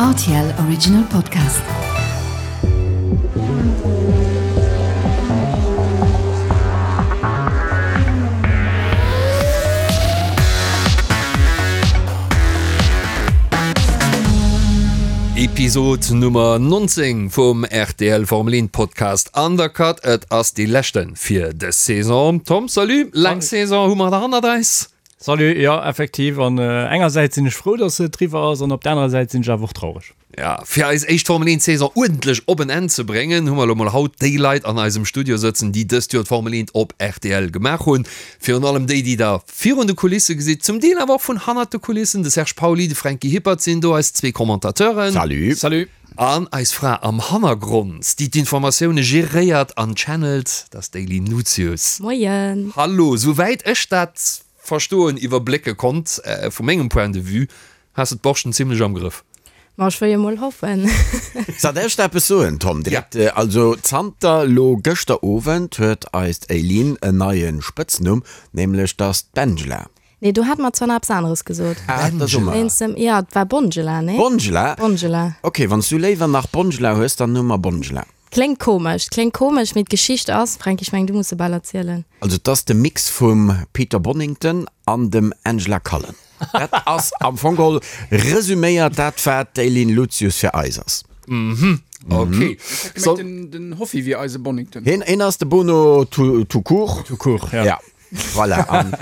Rtl Original Podcast. Episod Nummer 19 vum rtl Formel 1 Podcast Undercut. Et ass dee leschte fir dës Saison. Tom, salut! Laang Saison hu mer hannert eis. Salut, jo effektiv, an engersäits sinn ech frou dass et eriwwer ass an op der anerer Säit sinn ech awer och traureg. Ja, fir eis éischt Formel 1 Saison uerdentlech op en Enn ze bréngen, hu mer elo mol haut déi Leit an eisem Studio sëtzen, déi dëst Joer d'Formel 1 op rtl gemaach hunn. Virun allem déi, déi der virun de Kulisse gesitt, zum Deel awer och vun hannert de Kulissen. De Serge Pauly, de Franky Hippert sinn do, eis zwee Commentateuren. Salut. Salut. An eis Fra am Hannergrond, déi d'Informatioune geréiert an channelt, dat ass d'Aylin Lucius. Moien! Hallo! Souwäit ech dat verstoen, iwwerblécke konnt, vu mengem Point de vue, has de d'Borschten zimlech am Grëff. Ma ech wëll jo mol hoffen. Soll ech der eppes soen, Tom? Direkt, also zanter lo gëschter Owend huet eist Aylin en neie Spëtznumm, nämlech 't ass d'Bengela. Nee, do hat mer zwar nach eppes aneres gesot. Ah, dat ass och Wéinst dem, ja, et war Bongela, nee? Bongela? Bongela. Ok, wann s du léiwer nach Bongela hues, dann hu mer Bongela. Kléngt komesch, kléngt komesch, mee d'Geschicht ass, Fränki, ech mengen, du muss se bal erzielen. Also, et ass de Mix vum Peter Bonnington an dem Angela Cullen. Dat ass am Fong geholl resüméiert dat, wat d'Eileen Lucius fir eis ass. Mhm, ok. Ech hat gemengt, den Hoffi wier eise Bonnington. Hien ass de Bono tout court. Tout court, ja. Ja. Voilà, an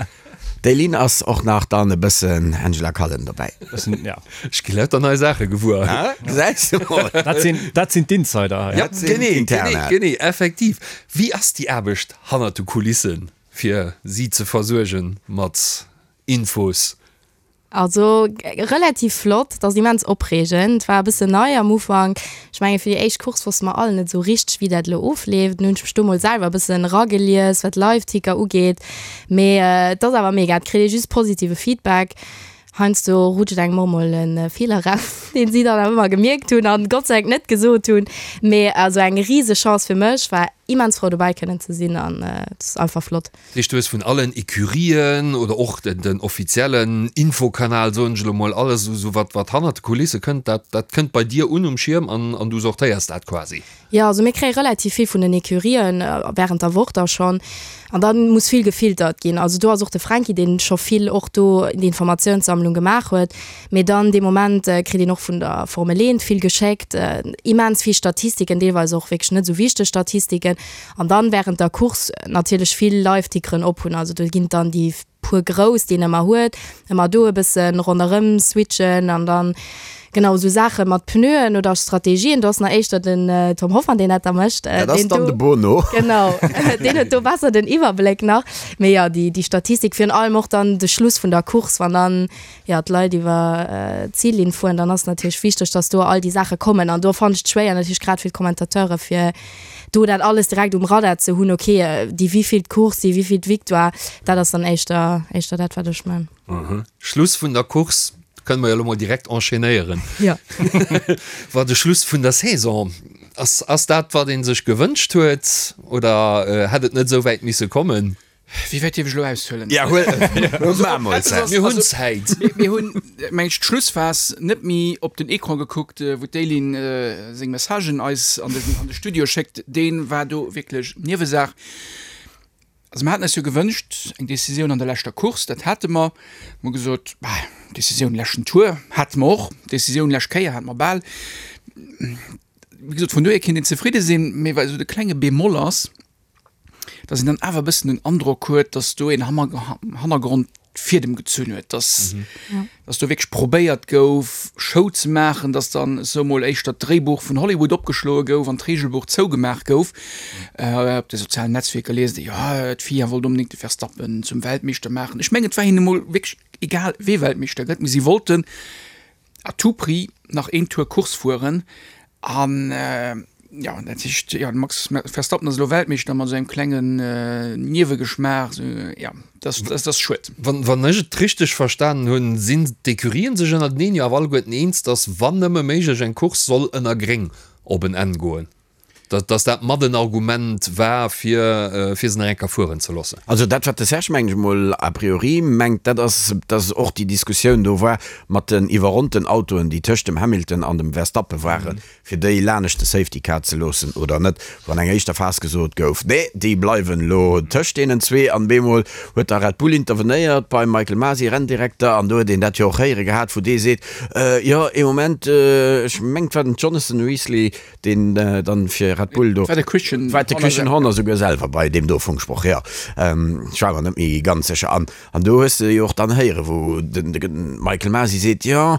d'Eileen ass och nach dann e bëssen Angela Cullen dobäi. Bëssen, ja. Ech gi lauter nei Saache gewuer. Ah, gesäis de mol. Dat sinn, dat sinn d'Insider hei. Ja, Dat sinn genee, genee, d'Interna. genee, effektiv. Wéi ass déi Aarbecht hannert de Kulissen, fir si ze versuergen mat Infos? Also relativ flott, et ass immens opreegend, war e bëssen nei am Ufank. Ech menge fir déi éischt Course wosste mer all net esou richteg wéi dat elo ofleeft. Dunn hunn ech mech do mol selwer e bëssen eragelies wat Live-Ticker ugeet. Mee et ass awer mega, et kritt ee just positive Feedback. Heiansdo rutscht engem och mol e Feeler eraus, deen si dann awer ëmmer gemierkt hunn an Gott sei Dank net gesot hunn. Mee also eng rise Chance fir mech, war immens frou dobäi kënnen ze sinn an et ass einfach flott. Dat heescht, du hues vun allen Ecurien oder och den offiziellen Infokanal, soen ech elo mol, alles esou wat wat hannert de Kulisse kënnt, dat dat kënnt bei dir un um Schierm an an du sortéiers dat quasi? Jo, also mir kréie relativ vill vun den Ecurien während der Woch da schonn an da muss vill gefiltert ginn. Also do ass och de Fränki, deen scho vill och do d'Informatiounssammlung gemaach huet. Mee dann dee Moment kritt een och vun der Formel 1 vill geschéckt, immens vill Statistiken, deelweis och wierklech net esou wichteg Statistiken. An dann während der Course natierlech vill Live-Tickeren op hunn. Also do ginn et dann déi puer grouss, déi een ëmmer huet, ëmmer do e bësse ronderëm switchen an dann, genau, esou Saache mat Pneuen oder Strategien. Do ass nach éischter den Tom Hoffmann, deen dat da mécht. Dat ass dann de Bono. Genau, deen huet do besser den Iwwerbléck nach. Mee jo, déi Statistik, virun allem och dann de Schluss vun der Course, wann dann jo, d'Leit iwwer d'Zillinn fueren, dann ass natierlech wichteg, dass do all déi Saache kommen. An do fannen ech et schwéier natierlech grad fir d'Commentateure fir do dat alles direkt um Radar ze hunn, okay, déi wivillt Course, déi wivillt Victoire, dat ass dann éischter, éischter dat wat ech man. Schluss vun der Course, kënne mer jo elo mol direkt enchaînéieren. Jo. War de Schluss vun der Saison, ass, ass dat wat ee sech gewënscht huet oder hätt et net esou wäit misse kommen? Wéi wäit dierf ech elo aushuelen? Ja, huel, maa mol Zäit. Mir hunn Zäit. Mir hunn, meng ech, d'Schlussphas net méi op den Ecran gekuckt, wou d'Eileen seng Messagen eis an de, an de Studio schéckt. Dee war do wierklech Niewesaach. Also mir haten eis jo gewënscht, eng Decisioun an der leschter Course, dat hate mer. Mir hu gesot, bah, Decisioun leschten Tour hate mer och, Decisioun lescht Kéier hate mer bal. Wéi gesot, vun dohier kéint een zefridde sinn, mee wat esou de klenge Bémol ass, dass een dann awer e bëssen den Androck huet, dass do een am Hannergrond d'Fiedem gezunn huet, dass, dass do wierklech probéiert gouf, Show ze maachen, dass dann esou mol éischter d'Dréibuch vun Hollywood opgeschloe gouf an d'Reegelbuch zougemaach gouf. Op de sozialen Netzwierker liest ee, jo, d'FIA wollt onbedéngt de Verstappen zum Weltmeeschter maachen. Ech mengen, et war hinnen emol wierklech egal, wee Weltmeeschter gëtt, mee si wollten à tout prix nach een Tour Course fueren an jo dat heescht jo de Max Verstappen ass elo Weltmeeschter mat esou engem klengen Niewegeschmaach esou jo dat ass dat ass schued. Wann wann ech et richteg verstanen hunn, sinn d'Ecurien sech ënnerteneen jo awer alleguerten eens, datt wann nëmme méiglech eng Course soll ënner Gréng op en Enn goen. Dass dat mat en Argument war, fir fir se nach eng Kéier fueren ze loossen. Also dat, wat de Serge, mengen ech emol, a priori mengt, dat ass, dass och déi Diskussioun do war mat den iwwerronnten Autoen, déi tëscht dem Hamilton an dem Verstappen waren, fir déi lanescht de Safety Car ze loossen oder net, wou an enger éischter Phas gesot gouf, nee, déi bleiwen elo tëscht deenen zwee. An bemol huet da Red Bull intervenéiert beim Michael Masi, Renndirekter, an do huet een dat jo och héiere gehat, wou dee seet, jo, ee Moment, ech mengen, et war den Jonathan Weasley, deen dann fir Red Bull do. War de Christian War de Christian Horner souguer selwer bei deem do Funksproch, jo. Ech war mer net méi ganz sécher. An, an do hues de jo och dann héieren, wou den, de Michael Masi seet, jo,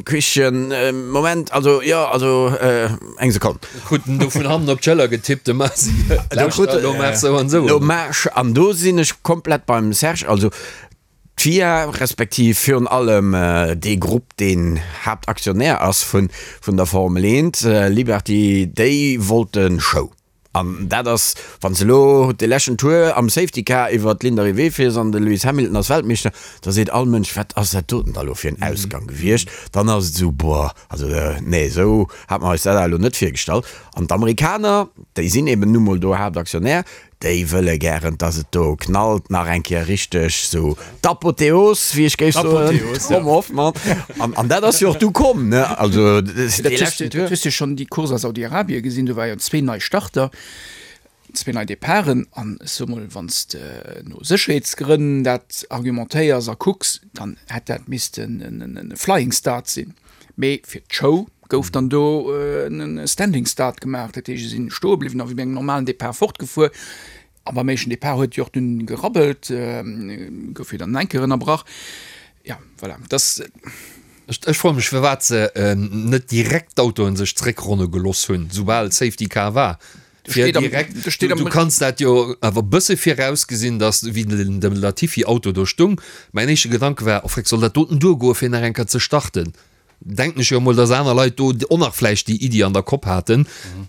Christian, Moment, also, jo, also, eng Sekonn. Krut en do vun hannen op d'Schëller getippt, de Masi, lauschter, elo maach sou an sou. Elo maach, an do sinn ech komplett beim Serge, also D'FIA, respektiv virun allem dee Grupp, deen Haaptaktionär ass vun der Formel 1, Liberty, déi wollte Show. An dat ass, wann s de elo de leschten Tour am Safety Car iwwer d'Ligne d'arrivée fiers an de Lewis Hamilton ass Weltmeeschter, da seet all Mënsch, wat ass dat doten da elo fir en Ausgang gewiescht? Dann ass et esou, boah, also nee, esou hate mer eis dat awer elo net virgestallt. An d'Amerikaner, déi sinn eben nu mol do Haaptaktionär, Déi wëlle gären, dass et do knallt, nach eng Kéier richteg sou d'Apotheos, wéi ech géif soen, Tom Hoffmann. An, an dat ass jo och du komm, ne? Also, dee leschten Tour. Dat hues de schonn déi Course a Saudi-Arabie gesinn, do war jo zwee nei Starter, zwee nei Departen. An ech soe mol, wann s de no Sécherheetsgrënn dat argumentéiers a kucks, dann hätt dat missten e Flying Start sinn. Mee fir d'Show gouf dann do e Standing Start gemaach, dat heescht, se sinn stoe bliwwen a wéi bei engem normalen Depart fortgefuer. A beim éischten Depart huet jo och dunn gerabbelt, gouf jo dann eng Kéier ënnerbrach. Jo, voilà, dass. Ech froe mech, firwat se net direkt d'Autoen sech zréckronne geloss hunn, soubal Safety Car war. Fir direkt, du, du kanns dat jo awer bësse virausgesinn, dass wéi den dem Latifi Auto do stung, mäin éischte Gedanke war, oh freck, soll dat doten duergoe fir nach eng Kéier ze starten? Denken ech jo emol, dass aner Leit do och nach vläicht déi Iddi an der Kopp haten.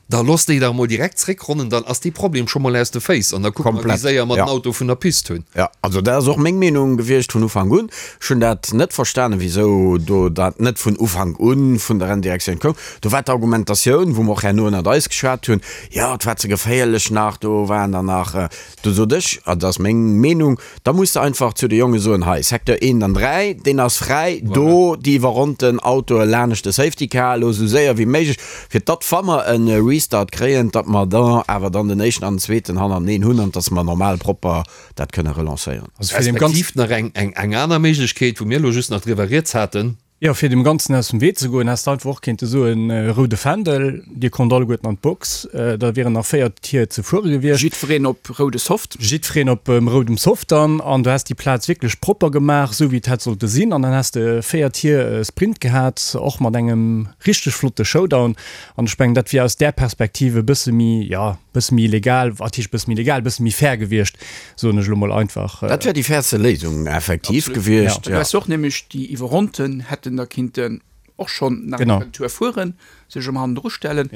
Da looss déi dach emol direkt zréckronnen, dann ass dee Problem scho mol aus de Féiss an da kucke mer, wéi séier mer den Auto vun der Pist hunn. Jo, also dat ass och meng Meenung gewiescht vun Ufank un. Ech hunn dat net verstanen, wisou do dat net vun Ufank u vun der Renndirektioun koum. Do war d'Argumentatioun, wou mer och herno ënnert eis geschwat hunn, jo, et war ze geféierlech nach, do waren der nach, do sot ech, an dat ass meng Meenung, da muss de einfach zu de Jonge soen, hei, Secteur 1 an 3, deen ass fräi, do déi iwwerronnten Autoe lanescht de Safety Car, elo esou séier wéi méiglech, fir datt, wa mer e Restart kréien, datt mer da awer dann den éischten an den zweeten hannerteneen hunn an datt mer normal propper dat kënne relancéieren. Also fir dem Ganzen. Respektiv nach eng eng aner Méiglechkeet, wou mir elo just nach driwwer rieds haten. Jo, fir dem Ganzen aus dem Wee ze goen, häss de einfach och kéinte soen, roude Fändel, dir konnt alleguerten an d'Box, da wieren nach 4 Tier ze fuere gewiescht. Jiddwereen op roude Soft. Jiddwereen op roudem Soft dann, an du häss déi Plaz wierklech propper gemaach, esou wéi et hätt sollte sinn, an dann häss de 4 Tier Sprint gehat, och mat engem richteg flotte Showdown. An ech mengen, dat wier aus där Perspektiv e bësse méi, jo, e bësse méi legal, wat heescht e bësse méi legal, e bësse méi fair gewiescht, soen ech elo mol einfach. Dat wär déi fairste Léisung effektiv gewiescht, jo. Wess och nämlech déi Iwwerronnten hätten da kinnten och schonn nach eng Tour fueren, sech ëm hannendru stellen.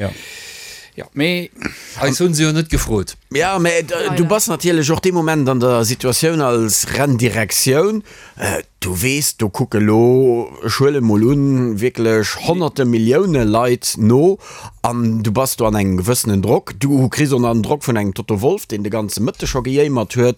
Jo, mee. Eis hunn se jo net gefrot. Jo, mä du bass natierlech och dee Moment an der Situatioun als Renndirektioun, Du weess, do kucke lo, ech huelen mol un, wierklech honnerte Millioune Leit no an du bass do an engem gewëssenen Drock. Du kriss och nach den Drock vun engem Toto Wolff, deen de ganze Mëtteg scho gejéimert huet,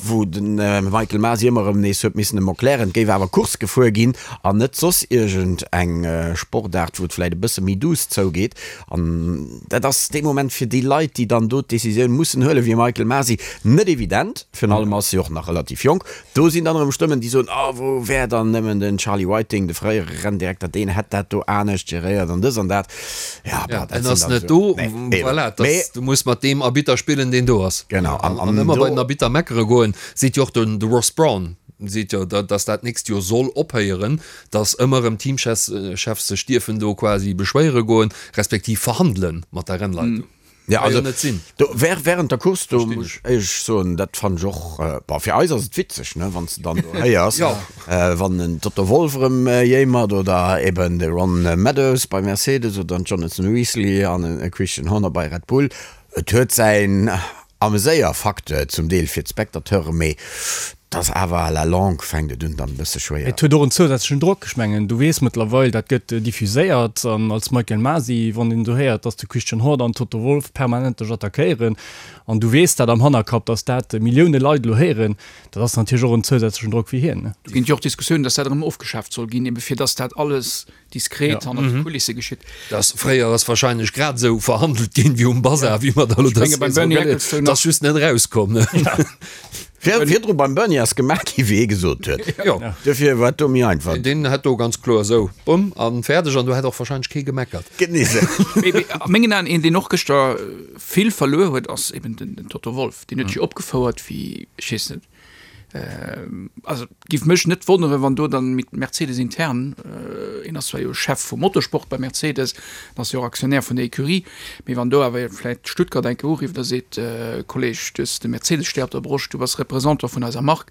wou de Michael Masi ëmmer erëm nees huet missen em erklären, et géif awer Course gefuer ginn an net soss iergend eng Sportaart, wou et vläicht e bësse méi duuss zougeet. An dat ass dee Moment fir déi Leit, déi dann do d'Decisioun mussen huelen, wéi e Michael Masi, net evident. Virun allem ass e och nach relativ jonk. Do sinn dann erëm Stëmmen, déi soen, oh, wou wär dann nëmmen den Charlie Whiting, de fréiere Renndirekter, deen hätt dat do anescht geréiert an dës an dat. Ja, bah, dat en ass net do, voilà, das, du muss mat deem Arbitter spillen, deen do ass. Genau. An, an, an ëmmer bei den Arbitter meckere goen, seet jo och den, de Ross Brawn, seet jo, dass dat nächst Joer soll ophéieren, dass ëmmer erëm Teamchefs sech dierfen do quasi beschwéiere goen, respektiv verhandele mat der Rennleitung. Ja, also, net sinn. Do, während der Course, do muss ech éierlech soen, dat fand ech och, bon, fir eis ass et witzeg, ne, wann s de dann do héiers, ja. wann en Toto Wolff erëm jéimert oder eben de Ron Meadows bei Mercedes oder den Jonathan Weasley an e Christian Horner bei Red Bull. Et huet säin Ameséierfacteur zum Deel fir d'Spectateuren, mee. Et ass awer à la longue fänkt et un dann e bësse schwéier. Et huet och en zousätzlechen Drock. Ech mengen, du weess mëttlerweil, dat gëtt diffuséiert. An als Michael Masi, wann een do héiert, dass de Christian Horner an Toto Wolff permanent dech attackéieren an du weess dat am Hannerkapp, dass dat Millioune Leit elo héieren, dat ass natierlech och en zousätzlechen Drock fir hien. Do ginn et jo och Diskussiounen, dass dat erëm ofgeschaaft soll ginn, ebe fir dass dat alles diskret hannert de Kulisse geschitt. Dass fréier ass wahrscheinlech grad esou verhandelt ginn wéi um Bazar, wéi mer da elo dës Saison gëtt. Et ass just net erauskomm. Virdru beim Bernie ass gemaach gi wéi hie gesot huet. Jo. Dofir war et do méi einfach. Deen hätt do ganz kloer esou, bumm, a fäerdeg. An do hätt och wahrscheinlech kee gemeckert. Genee esou. Mee a mengen Aen, een deen och gëschter vill verluer huet, ass eben den Toto Wolff. Deen huet sech opgefouert wéi, ech weess net, Also et giff mech net wonneren, wann do dann mit Mercedes intern, een ass zwar jo Chef vum Motorsport bei Mercedes, en ass jo och Aktionär vun der Ecurie, mee wann do awer vläit Stuttgart eng Kéier urifft a seet, Kolleg, du hues de Mercedes-Stär op der Broscht, du bass Représentant vun eiser Mark,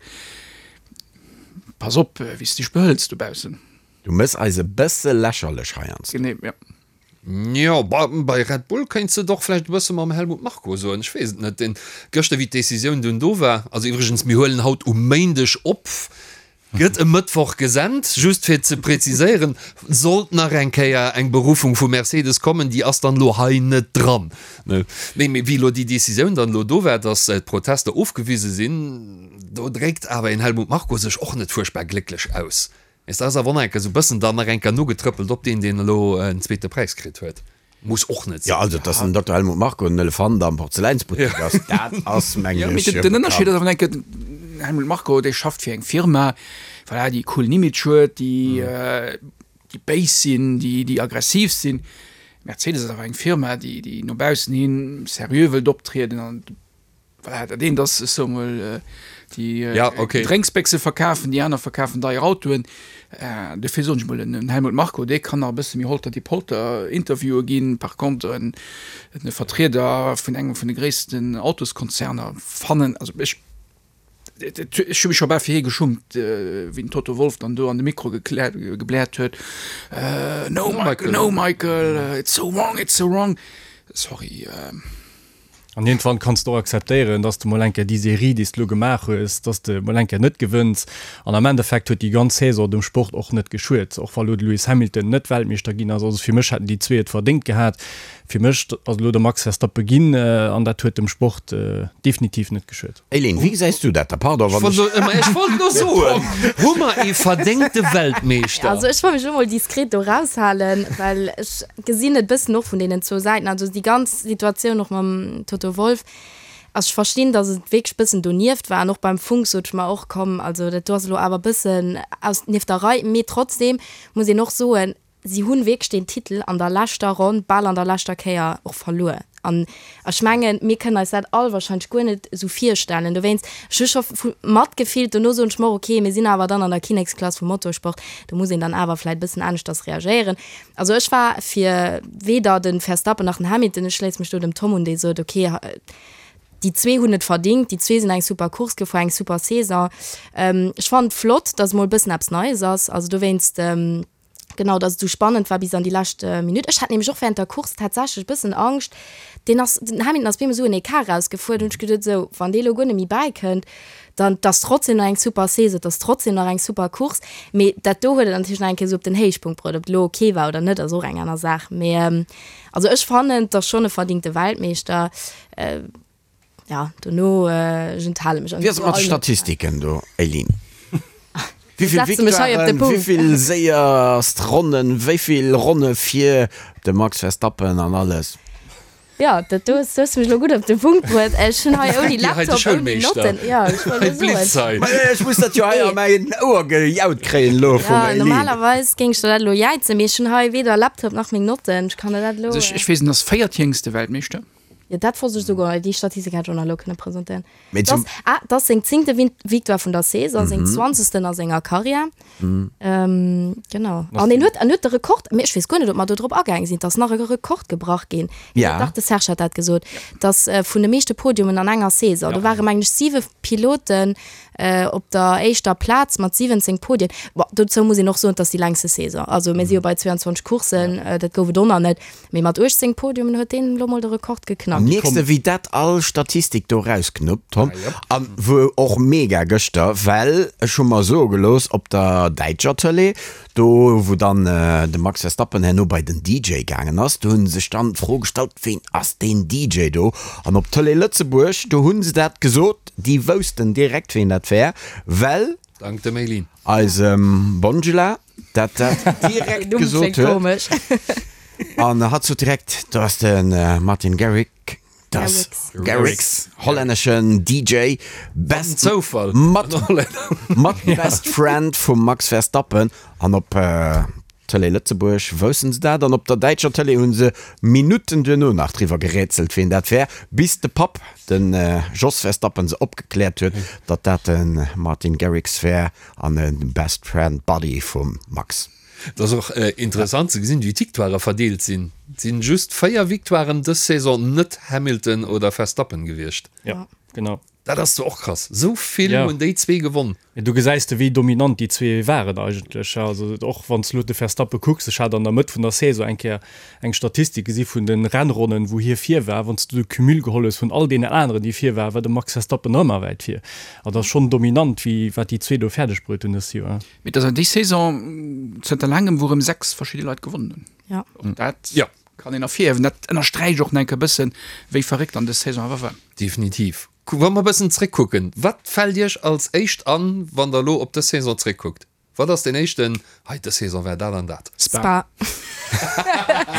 pass op wéi s de dech behëls dobaussen. Du mëss eis e bësse lächerlech heiansdo. Genee, jo. Jo, bei Red Bull kéints de et och vläicht e bësse mam Helmut Marko soen, ech weess et net. Deen gëschter, wéi d'Decisioun dunn do war, also iwwregens, mir huelen haut um Méindeg op, gëtt e Mëttwoch gesent, just fir ze preziséieren, sollt nach eng Kéier eng Beruffung vu Mercedes kommen, déi ass dann elo hei net dran. Nee, mee wéi elo déi Decisioun dann elo do war, datt d'Protester ofgewise sinn, do dréckt awer een Helmut Marko sech och net fuerchtbar glécklech aus. Mee ass awer och nach eng Kéier esou bëssen dann nach eng Kéier nogetrëppelt op deen, deen elo en zweete Präis kritt huet. Muss och net sinn. Jo, also dass den Dokter Helmut Marko en Elefant am Porzeläinsbuttek ass, dat ass, mengen ech, jo bekannt. Den Ënnerscheed ass awer eng Kéier, den Helmut Marko, dee schafft fir eng Firma, voilà, déi e coolen Image huet, déi, déi béis sinn, déi, déi aggressiv sinn. Mercedes ass awer eng Firma, déi, déi no baussen hin seriö wëllt optrieden an Voilà, dat eent ass, ech soe mol, déi ja, okay. Drénksbéchse verkafen, déi aner verkafen deier Autoen. Äh, dofir soen ech mol, en Helmut Marko, dee kann nach e bësse méi holter die Polter Interviewe ginn. Par contre, en, en Vertrieder vun engem vun de gréissten Autoskonzerner fannen, also ech, ech hu mech scho bal fir hie geschummt, wéi den Toto Wolff dann do an de Mikro gekläert, gebläert huet, äh, no Michael, no Michael, it's so wrong, it's so wrong. Sorry. Äh. An iergendwann kanns de och akzeptéieren, dass de mol eng Kéier déi Serie, déi s de elo gemaach hues, dass de mol eng Kéier net gewënns. An am Endeffekt huet déi ganz Saison dem Sport och net geschuet, och wa lo de Lewis Hamilton net Weltmeeschter ginn ass. Also fir mech hätten déi zwee et verdéngt gehat. Fir mech ass elo de Max Verstappen ginn an dat huet dem Sport definitiv net geschuet. Eileen, wéi gesäis du dat da? Pardon, wann ech. Ech wollt elo soen, hu mer ee verdéngte Weltmeeschter? Also ech wëll mech elo mol diskret do raushalen, well ech gesinn et bëssen och vun deenen zwou Säiten, also déi ganz Situatioun och mam Toto Wolff, also ech verstinn, datt et wierklech bëssen donieft war an och beim Funk sot ech mer och, komm, also dat do ass elo awer bëssen aus nieft der Rei, mee trotzdem muss een och soen, si hunn wierklech deen Titel an der leschter Ronn, bal an der leschter Kéier och verluer an ech mengen, mir kënnen eis dat all wahrscheinlech guer net esou virstellen, dowéinst, ech hu scho matgefillt, dono soen ech mer och, okay, mir sinn awer dann an der Kinneksklass vum Motorsport, do muss een dann awer vläit bëssen aneschters reagéieren. Also ech war fir weder de Verstappen nach den Hamilton. Ech schléisse mech do dem Tom un, dee sot, ok, déi zwee hunn et verdingt, déi zwee sinn eng super Course gefuer, eng super Saison. Ech fannen et flott, datt emol e bëssen eppes Neies ass. Also dowéinst, genau, datt et esou spannend war bis an déi lescht Minutt. Ech hat nämlech och während der Course tatsächlech e bëssen Angscht, deen ass, den Hamilton ass bemol esou en Ecart erausgefuer, do hunn ech geduet, esou, wann dee elo guer net méi bäikënnt, Dann, 't ass trotzdem nach eng super Saison, 't ass trotzdem nach eng super Course, mee dat do huet et natierlech nach eng Kéier esou op den Héichpunkt bruet. Ob et elo ok war oder net, ass och eng aner Saach, mee also ech fannen, 't ass schonn e verdingte Weltmeeschter. Jo, dono, ech enthale mech. Wéi ass et mat de Statistiken do, Eileen? Wéi vill Setze mech hei op de Victoiren, wéi Punkt. vill séierst Ronnen, wéi vill Ronne fir de Max Verstappen an alles? Jo, dat do hues du mech elo gutt op de Punkt bruet. Ech hunn hei ouni Hei de Laptop, ouni Schoulmeeschter. Notten. Jo, ech wollt Hei elo soen. blitzt hei. Ma ech muss dat jo hei a mäin Ouer gejaut kréien elo vum Jo, Eileen. normalerweis géing ech der dat elo jäizen, mee ech hunn hei weder Laptop nach meng Notten. Ech kann der dat elo. Also ech, ech weess, en ass véiertjéngste Weltmeeschter. Jo, dat wosst ech souguer. Déi Statistik hätt ech och nach elo kënne presentéieren. Mee Dat zum. ass, ah, dat ass seng zéngte Victoire vun der Saison, seng zwanzegsten a senger Karriär. Genau. An en huet, en huet de Rekord, mee ech weess guer net, ob mer do drop agaange sinn, et ass nach e Rekord gebrach ginn. Ja. Dach, de Serge hat dat gesot, dass vun de meeschte Podiumen an enger Saison, do ware mengen ech siwe Piloten. Op der éischter Plaz mat 17 Podien. Bon, dozou muss een och soen, et ass déi längste Saison. Also mir si jo bei 22 Courssen, dat gouf et och nach net. Mee mat 18 Podiumen huet deen elo mol de Rekord geknackt. Mierks de wéi dat all Statistik do rausknuppt, Tom? An wou och mega gëschter, well ech hu mer soe gelooss op der däitscher Tëlee, do wou dann de Max Verstappen herno bei den DJ gaangen ass, do hu sech dann d'Fro gestallt, ween ass deen DJ do? An op Tëlee Lëtzebuerg, do hu se dat gesot, déi woussten direkt ween dat wär, well. Dank dem Eileen. Eisem Bongela dat dat direkt gesot huet. An hatt sot direkt, do ass de Martin Garrix, das Garrix, hollänneschen DJ, best Zoufall, mat, mat best friend vum Max Verstappen. An op Tëlee Lëtzebuerg woussen se dat an op der däitscher Tëlee hu se Minutten duerno nach driwwer gerätselt, ween dat wär, bis de Papp, de Jos Verstappen, se opgekläert huet, datt dat de Martin Garrix wär an e Best Friend Buddy vum Max. Et ass och interessant ze gesinn, wéi d'Victoirë verdeelt sinn. Et sinn just 4 Victoiren dës Saison net Hamilton oder Verstappen gewiescht. Jo, genau. Dat ass zwar och krass, esou vill hunn déi zwee gewonn. Du gesäis de wéi dominant déi zwee waren eigentlech. Also och wann s de elo de Verstappen kucks, ech hat an der Mëtt vun der Saison eng Kéier eng Statistik gesi vun de Rennronnen, wou hie vir war. Wann s du de Cumul geholl hues vun all deenen aneren, déi vir waren, war de Max Verstappen nach ëmmer wäit vir. Also dat ass schonn dominant, wéi wat déi zwee do fäerdeg bruet hunn dëst Joer. Mee et ass déi Saison zënter laangem, wou erëm 6 verschidde Leit gewonnen hunn. Och dat kann een ervirhiewen. Dat ënnersträicht och nach eng Kéier e bëssen, wéi verréckt dann dës Saison awer war. Definitiv. Wa mer e bëssen zréckkucken, wat fält Iech als éischt an, wann Der elo op dës Saison zréckkuckt? Wat ass deen éischten, hei dës Saison war dat an dat? Spa.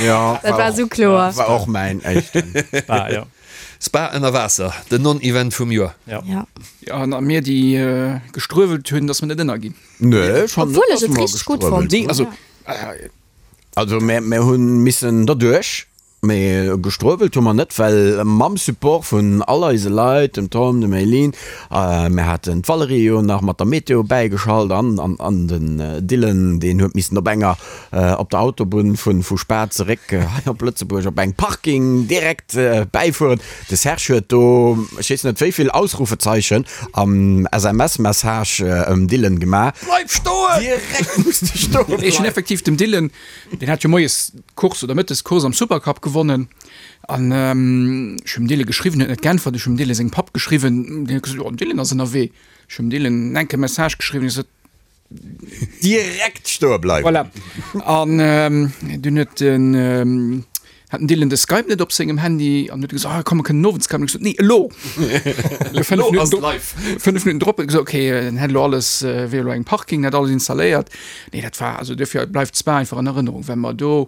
Jo, Dat war esou kloer. War och mäin éischten. Spa, jo. Spa ënner Waasser, den Non-Event vum Joer. Jo. Ja. Jo, an a mir, déi gestruewelt hunn, datt mer net ënnerginn. Nee, ech fannen net, Obwuel ech datt et mer richteg gutt gestruewelt fonnt Nee, hunn. also. Also mir, mir hu missen derduerch, mee gestruewelt hu mer net, well mam Support vun all eise Leit, dem Tom, dem Eileen, mir haten d'Valerije jo nach mat der Meteo bäigeschalt an, an, an den Dylan, deen huet missen op enger, op der Autobunn vu, vu Spa zeréck hei op Lëtzebuerg op engem Parking direkt bäifueren. De Serge huet do, ech weess net wéi vill Ausrufezeichen am SMS-Message ëm Dylan gemaach. Bleif stoen! Direkt muss de stoen Ech hunn bleiwen. effektiv dem Dylan, deen hat jo moies d'Course oder mëttes d'Course am Supercup gewonnen an ech hunn dem Dylan geschriwwen, huet net geäntwert. Ech hunn dem Dylan sengem Papp geschriwwen, deen huet gesot, jo den Dylan ass ënnerwee. Ech hunn dem Dylan enke Message geschriwwen, hie sot, Direkt stoe bleiwen. Voilà. An dunn huet den, hat den Dylan de Skype net op sengem Handy an huet gesot, ah komm, mer kënnen owends skypen. Ech gesot, nee, elo! Elo ass et live. 5 Minutten drop huet e gesot, okay, en hätt elo alles, wier elo engem Parking, hätt alles installéiert. Nee, dat war, also duerfir bleift Spa einfach an Erënnerung, well mer do,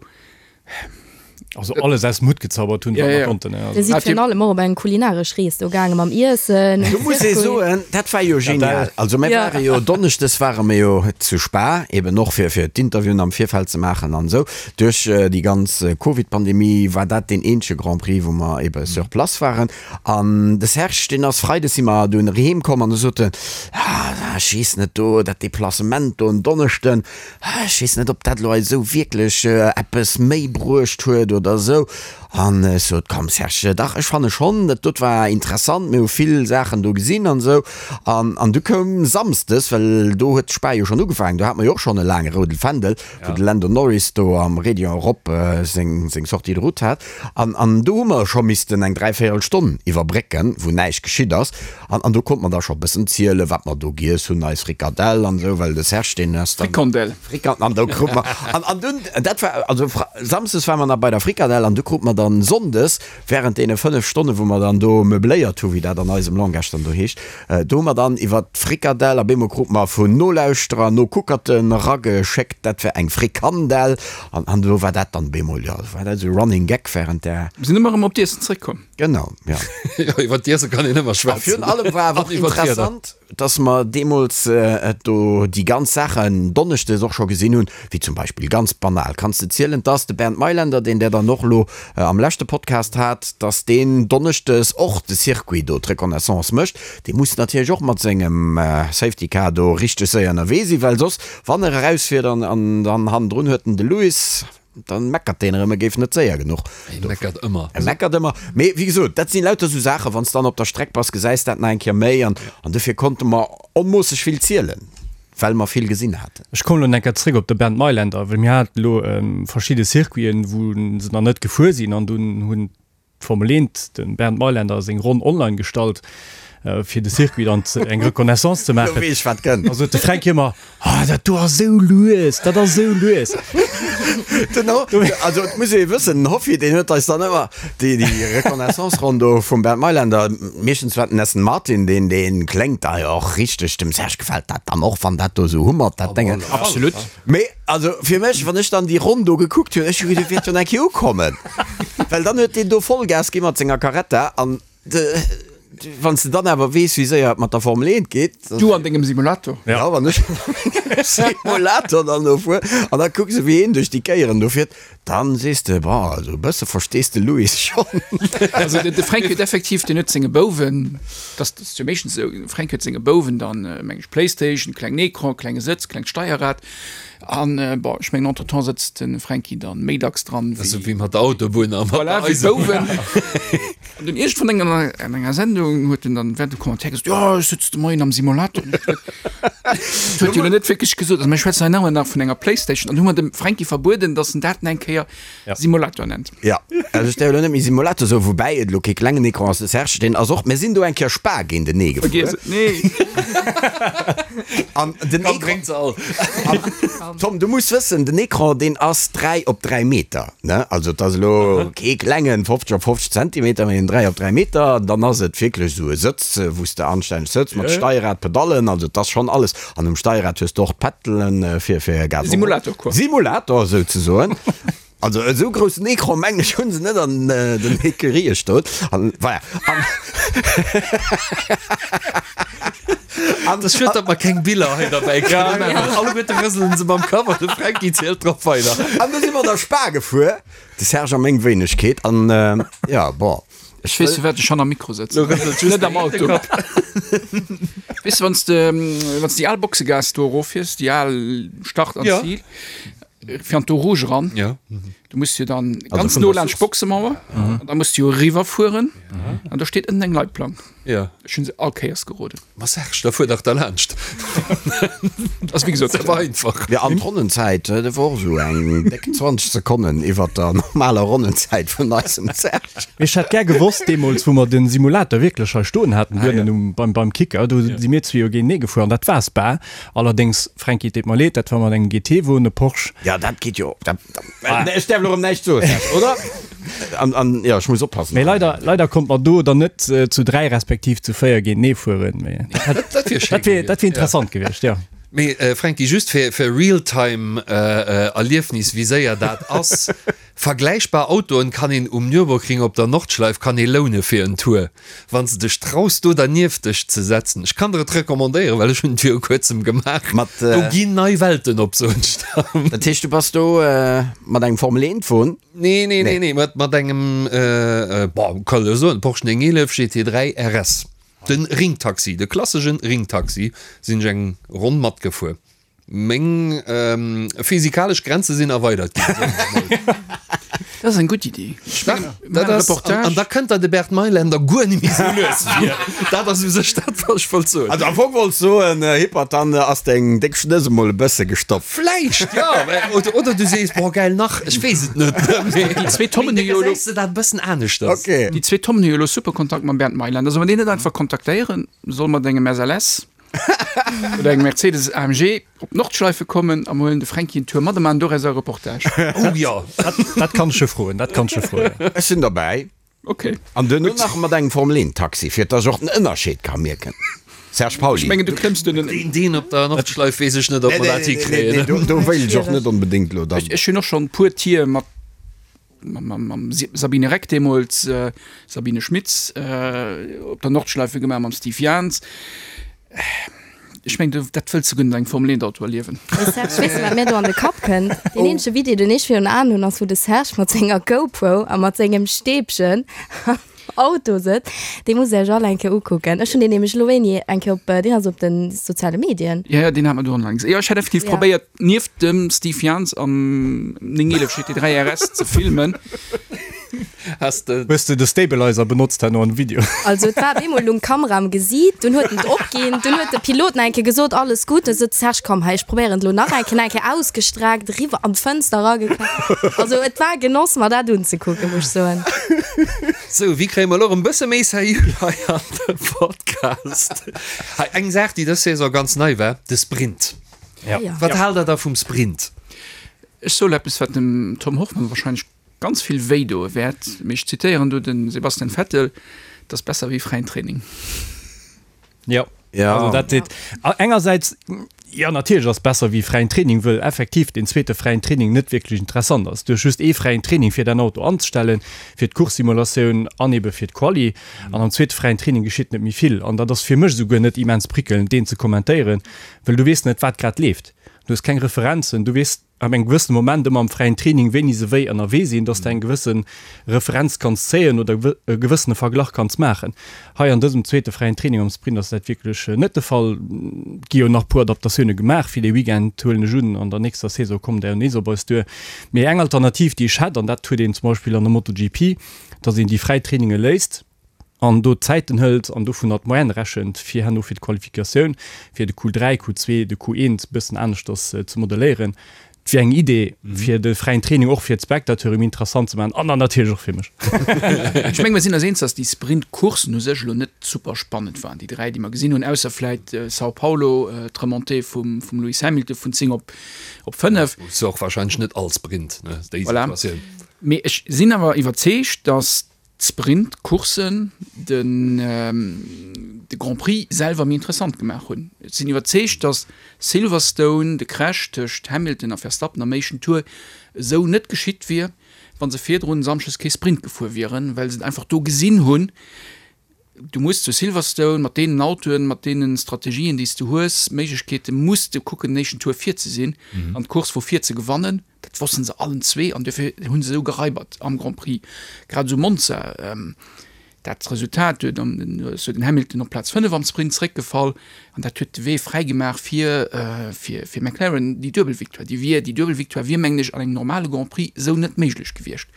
Also alles aus dem Hutt gezaubert hunn, wat mer konnten. Dir sidd virun allem och op eng kulinaresch Rees do gaange mam Iessen. Do muss ee soen, dat war jo genial. Also mir ware jo donneschdes ware mir jo zu Spa, eben och fir fir d'Interviewen am Virfeld ze maachen an esou. Duerch déi ganz Covid-Pandemie war dat deen eenzege Grand Prix, wou mer ebe sur place waren. An de Serge, deen ass freides si mer dunn heem komm an du sot en, ah ech weess net do, dat Deplacement do en Donneschden, Ech weess net, ob dat elo eis esou wierklech eppes méi bruecht huet oder esou. An ech sot, Komm Serge, dach, ech fanne schonn, dat dot war interessant, mir hu vill Saachen do gesinn an esou. An, an du koum samsdes, well do huet d'Spa jo schonn ugefaangen, do hate mer jo och schonn e laange roudel Fändel, wou de Lando Norris do am Raidillon erop seng, seng Sortie de route hat. An, an do hu mer scho missten eng dräivéierel Stonn iwwerbrécken, wou näischt geschitt ass. An, an do konnt mer da scho bëssen zielen, wat mer do giess hunn, eis Frikadell an esou, well de Serge, deen ass dann. Frikandel. Frikand, an do krut mer, an, an dunn, dat war, also Fre-, Samsdes ware mer nach bei der Frikadell an du krut mer dann Sonndes, während deene 5 Stonnen, wou mer dann do meubléiert hu, wéi dat an eisem Langage dann do heescht, do hu mer dann iwwert d'Frikadell, a bemol krut mer vun Nolauschterer, Nokuckerten erageschéckt, dat wär eng Frikandel, an, an do war dat dann bemol, jo, war dat esou Running Gag während där. Mir sinn ëmmer erëm op d'Iessen zréckkomm. Genau, ja. Jo, iwwer d'Iesse kann een ëmmer A schwätzen. virun allem war awer och An iwwer d'Wieder. interessant, dass mer deemools do déi ganz Saachen donneschdes och scho gesinn hunn, wéi zum Beispill, ganz banal, kanns de zielen, dass de Bernd Mayländer, deen Der dann och elo am leschte Podcast hat, dass deen donneschdes och de Circuit do, d'Reconnaissance mécht. Dee muss natierlech och mat sengem Safety Car do richteg séier ënnerwee sinn, well soss, wann er erausfiert an dann hannendrun huet en de Lewis. Dann meckert deen erëm, e géif net séier genuch. E meckert ëmmer. E meckert ëmmer. Mee wéi gesot, dat sinn lauter esou Saachen, wann s dann op der Streck bass, gesäis dat nach eng Kéier méi. An, an dofir konnte mer onmoosseg vill zielen, well mer vill gesinn haten. Ech kommen elo eng Kéier zréck op de Bernd Mayländer, well mir haten elo verschidde Circuiten, wou se nach net gefuer sinn an dunn hunn D'Formel Eent, de Bernd Mayländer seng Ronn online gestallt, fir de Circuit dann eng Reconnaissance ze maachen. Lo weess ech wat kënnt. Da sot de Fränk ëmmer, Ah, dat do ass esou lues, dat ass esou lues. Den Ho, also et muss ee wëssen, den Hoffi, deen huet eis dann ëmmer déi, déi Reconnaissance-Ronn do vum Bernd Mayländer, meeschtens war et den Aston Martin, deen, deen kléngt da jo och richteg, dem Serge gefält dat dann och, wann dat do esou hummert, dat Déngen. Absolut. Mee also fir mech, wann ech dann déi Ronn do gekuckt hunn, ech hu geduecht, wäert jo nach eng Kéier ukommen. Well dann huet deen do Vollgas gi mat senger Carretta an de, wann s de dann awer weess, wéi séier et mat der Formel 1 geet. Du an dengem Simulator. Ja, wann ech an mengem Simulator dann do fuer an da kucks de, wéi een duerch déi Kéieren do fiert, dann sees de, bon, also e bësse verstees de Lewis schonn. Also de Fränk huet effektiv, deen huet senge Bouwen, dat ass jo meeschtens esou, de Fränk huet senge Bouwen dann, meng ech, Playstation, klengen Ecran, klenge Sëtz, klengt Steierrad an, bon, ech mengen entretemps sëtzt de Fränki dann méi dacks dran wéi. Esou wéi mat der Autobunn a mat der Voilà, wéi d'Bouwen. An dunn iergendwann eng an enger Sendung huet en dann während dem Commentaire gesot, jo, ech sëtz de Moien am Simulator. Dat huet jo elo net wierklech gesot. Also mir schwätzen hei nach ëmmer nach vun enger Playstation an hu mer dem Fränki verbueden, datt en dat eng Kéier Simulator nennt. Jo, also ech däerf elo net méi Simulator soen, woubäi et elo kee klengen Ecran ass, de Serge, deen ass och, mir sinn do eng Kéier Spa géintenee gefuer. Vergiess et, nee. An den Komm, Ecran, bréngt se all. Tom, du muss wëssen, den Ecran, deen ass 3 op 3 Meter, ne, also et ass elo kee klengen 50 op 50 Zentimeter, mee en 3 op 3 Meter, dann ass et wierklech esou e Sëtz, wou s de anstänneg sëtz, mat Steierrad, Pedallen, also et ass schonn alles. An um Steierrad hues de och d'Peddelen fir fir Gas. Simulator quoi. Simulator souzesoen. Also esou groussen Ecran mengen ech hunn se net an den Ecurië stoen. An voilà. An An et ass schued, datt mer keng Biller hei derbäi kréien. Alleguerte rëselen se mam Kapp an de Franky zielt drop weider. An du si mer da Spa gefuer, de Serge a meng Wéinegkeet. An jo, bon. Ech weess firwat ech hanner Mikro sëtzen, net am Auto. Weess de, wann s de, wann s déi al Boxegaass do eroffiers, déi al Start an Zil, fir an d'Eau Rouge eran, du muss jo dann ganz no laanscht d'Boxemauer, an da muss du jo eriwwerfueren, an do steet ënnen eng Leitplank. Ech hunn se all Kéiers geroden. Ma Serge, da fuer dach derlaanscht. Ass wéi gesot, Dat war einfach. Jo, an d'Ronnenzäit, dat war och esou eng déck 20 Sekonnen iwwert der normaler Ronnenzäit vun eisem Serge. Mee ech hätt gär gewosst, deemools wou mer de Simulator wierklech hei stoen haten, duerno um, beim, beim Kicker, do si mir zwee jo géintenee gefuer an dat war Spa. Allerdéngs, Fränki, et deet mer leed, dat war mat engem GT-Won, e Porsche. Jo, dat geet jo, dat, Ech däerf elo erëm näischt soen, Serge, oder? An, an, jo, ech muss oppassen. Mee leider, leider konnt mer do dann net zu 3 respektiv zu 4 géintenee fueren. Mee dat, Dat wier schéin dat wier, dat wier gewiescht, ja. interessant gewiescht, jo. Mee Franky, just fir, fir Realtime Erliefnis, wéi séier dat ass, Vergläichbar Autoen kann een um Nürburgring op der Nordschleif kann ee loune fir en Tour. Wann s de dech traus do dernieft dech ze setzen, ech kann der et recommandéieren, well ech hunn et viru kuerzem gemaach, Mat, do ginn nei Welten op, soen ech der. Dat heescht du bass do mat engem Formel 1 Won? Nee, nee, nee, nee, mat, mat engem, bon, kann ech soen, Porsche 911 GT3 RS, den Ringtaxi, de klassegen Ringtaxi, sinn ech eng Ronn matgefuer. Meng physikalesch Grenze sinn erweidert ginn, soen ech mol. Dat ass eng gutt Iddi. Dach, dat ass, an da kënnt der de Bert Mailänder guer net méi sou lues vir. Dat ass u sech dat, wat ech wollt soen. Also am Fong wollts soen, Hippert, dann ass deng déck Schnëss emol e bësse gestoppt. Vläicht, jo. Oder, oder du sees, boah, geil, nach, ech weess et net. Déi zwee Tommen hu jo elo. Gesäis de dat e bëssen aneschters. Ok. Déi zwee Tommen hu jo elo super Kontakt mam Bernd Mailänder. Soll mer deen net einfach kontaktéieren? Soll mat engem SLS? Oder engem Mercedes AMG op d'Nordschleife kommen a mer huelen de Fränki en Tour mat a maachen doraus e Reportage. Oh jo. Dat kann ech jo froen, dat kann ech jo froen. Ech sinn derbäi. Ok. An duerno nach mat engem Formel 1 Taxi, fir dass ech och den Ënnerscheed ka mierken. Serge Pauly. Ech mengen du klëmms duerno. Deen, deen op der Nordschleif weess ech net, ob mer dat hikréien. Nee, nee, do wéilt ech och net onbedéngt elo dann. Ech hunn och schonn e puer Tier mat mam Sabine Reck deemools, Sabine Schmitz, op der Nordschleife gemaach, mam Steve Jans. Ech mengen, dat wëlls de guer net an engem Formel 1 Auto erliewen. Mee Serge, weess de wat mir do an de Kapp kënnt? Deen eenzege Video, deen ech virun Aen hunn, ass wou de Serge mat senger GoPro a mat sengem Stäbchen. Auto sëtzt. Dee musst Dir Iech all eng Kéier ukucken. Ech hunn deen nämlech elo wéini eng Kéier op, deen ass op de soziale Medien. Jo, jo, deen hat mer do online gesinn. Jo, ech hat effektiv Ja. probéiert, nieft dem Steve Jans am 911 GT3 RS ze filmen. Has de. Hues de de Stabilizer benotzt herno am Video? Also et war op eemol lung d'Kamera am Gesiit, dunn huet en et opginn, dunn huet de Pilot nach eng Kéier gesot, alles gutt, da sot de Serge, komm hei, ech probéieren et elo nach eng Kéier, nach eng Kéier ausgestreckt, eriwwer an d'Fënster erageknallt. Also et war e Genoss mer dat unzekucken, muss ech soen. Sou, wéi kréie mer elo erëm e bësse méi seriö hei an de Podcast? Hei, eng Saach, déi dës Saison ganz nei war, de Sprint. Ja. Wat haalt der da vum Sprint? Ech soe lo eppes, wat dem Tom Hoffmann wahrscheinlech ganz vill wéi doe wäert, mee ech zitéieren do de Sebastian Vettel, Et ass besser wéi fräien Training. Jo, Ja. also dat seet engersäits, jo natierlech ass besser wéi fräien Training, wëll effektiv deen zweete fräien Training net wierklech interessant ass. Du hues just ee fräien Training fir däin Auto anzestellen, fir d'Course-Simulatioun an ebe fir d'Quali. An am zweete fräien Training geschitt net méi vill. An dat ass fir mech esouguer net immens prickelnd, deen ze kommentéieren, wëll du weess net, wat grad leeft. Du hues keng Referenzen, du weess ab engem gewëssene Moment ëmmer am fräien Training, wéini se wéi ënnerwee sinn, dass de eng gewësse Referenz kanns zéien oder e gewëssene Verglach kanns maachen. Hei an dësem zweete fräien Training am Sprint ass dat wierklech net de Fall. Et gi jo nach e puer Adaptatioune gemaach fir dee Weekend, huelen ech un. An der nächster Saison kommen der jo nees op eis duer. Mee eng Alternativ, déi ech hätt, an dat huet een zum Beispill an der MotoGP, dass een déi fräi Traininge léisst, an do d'Zäiten hëlt an dovunner d'Moyenne rechent, fir herno fir d'Qualifikatioun fir de Q3, Q2, de Q1 e bëssen aneschters ze modelléieren. Et wier eng Idee, fir de fräien Training och fir d'Spectateure méi interessant ze maachen an dann natierlech och fir mech. Ech menge mer sinn eis eens, datt déi Sprint-Courssen u sech elo net super spannend waren, déi 3, déi mer gesinn hunn, ausser vläit São Paulo, d'Remontée vum Lewis Hamilton vun 10 op 5. Ass jo och warscheinlech net all Sprint, ne, déi Voilà. Situatioun. Mee ech sinn awer iwwerzeegt, datt d'Sprint-Courssen den de Grand Prix selwer méi interessant gemaach hunn. Ech sinn iwwerzeegt, datt Silverstone, de Crash tëscht Hamilton a Verstappen am éischten Tour esou net geschitt wier, wa se virdrun Samschdes kee Sprint gefuer wieren, well se et einfach do gesinn hunn, du muss zu Silverstone mat deenen Autoen, mat deene Strategien, déi s du hues, Méiglechkeete muss de kucken, den éischten Tour vir ze sinn an d'Course vu vir ze gewannen. Dat wossten se allen zwee an duerfir hu se esou geraibert am Grand Prix. Grad esou Monza, dat Resultat huet an ass jo den Hamilton op Plaz 5 am Sprint zeréckgefall an dat huet de Wee fräi gemaach fir fir fir McLaren déi duebel Victoire. Déi wier déi duebel Victoire wier mengen ech an engem normale Grand Prix esou net méiglech gewiescht,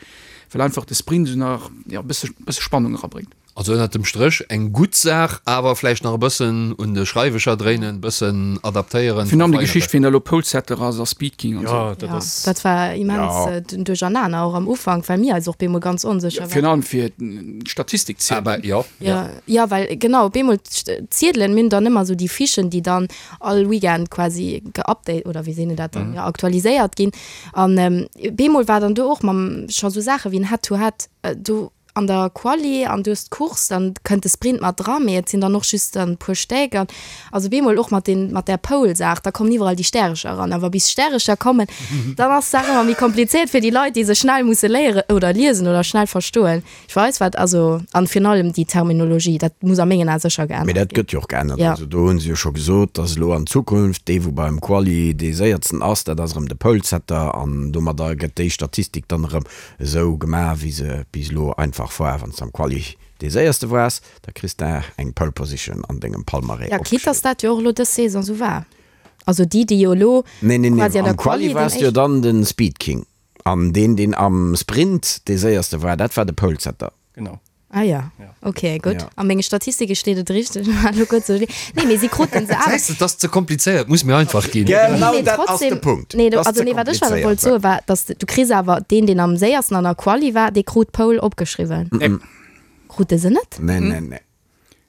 well einfach de Sprint esou nach jo e bësse bësse Spannung erabréngt. Also ënnert dem Stréch eng gutt Saach, awer vläicht nach e bëssen un de Schreiwecher dréinen, bëssen adaptéieren, Virun allem déi verfeineren. Geschicht, wien da elo Polesetter ass a Speed King an Ja, esou. dat Ja, ass. dat war immens Ja. den Duerchernaner och am Ufank, well mir eis och bemol ganz onsécher Virun waren. allem fir d'Statistik zielen. Awer jo, jo. Ja, ja, well genau, op eemol d'Ziedelen, mir hunn dann ëmmer esou déi Fichen, déi dann all Weekend quasi geupdate oder wéi seet een dat dann, jo, aktualiséiert ginn. An bemol war dann do och mam scho sou Saache wéi en Head-to-Head do, an der Quali an du hues d'Course, dann kënnt de Sprint mat dran, mee et sinn dann och just dann e puer Stéck an also bemol och mat den mat där Pole-Saach, da kommen iwwerall déi Stärecher eran, awer bis Stärecher kommen, dann ass d'Saach ëmmer méi komplizéiert fir déi Leit, déi se schnell musse léieren oder liesen oder schnell verstoen. Ech weess wat, also an virun allem déi Terminologie, dat muss a mengen Ae sécher Mee geännert dat ginn. gëtt jo och geännert. Ja. Also do hu se jo scho gesot, dass elo an Zukunft dee wou beim Quali dee séiertsten ass, dat ass erëm de Polesetter an domadder gëtt déi Statistik dann erëm Esou gemaach wéi se bis elo einfach war, wanns de am Quali dee séierste waars, da kriss de eng Pole Position an dengem Palmarès Ja, quitte dass opgeschriwwen. dat jo och elo dës Saison esou war. Also déi, déi jo elo Nee, nee, nee, quasi an der am Quali Quali den waars de jo éischten. dann de Speed King an deen deen am Sprint dee séierste war, dat war de Polesetter. Genau. Ah ja, ok, gutt. Ja. A menge Statistike steet et richteg. Elo kuerz sou. Nee, mee si kruten se awer. Gesäis de, et ass ze komplizéiert, muss méi einfach ginn. Genau Nee, mee dat ass de trotzdem, Punkt. nee, Dat ass also ze nee, wat ech awer komplizéiert. wollt soe war, dass du kriss awer deen, deen am séiersten an der Quali war, dee krut d'Pole opgeschriwwen. Nee. Krute se net? Nee, nee, nee.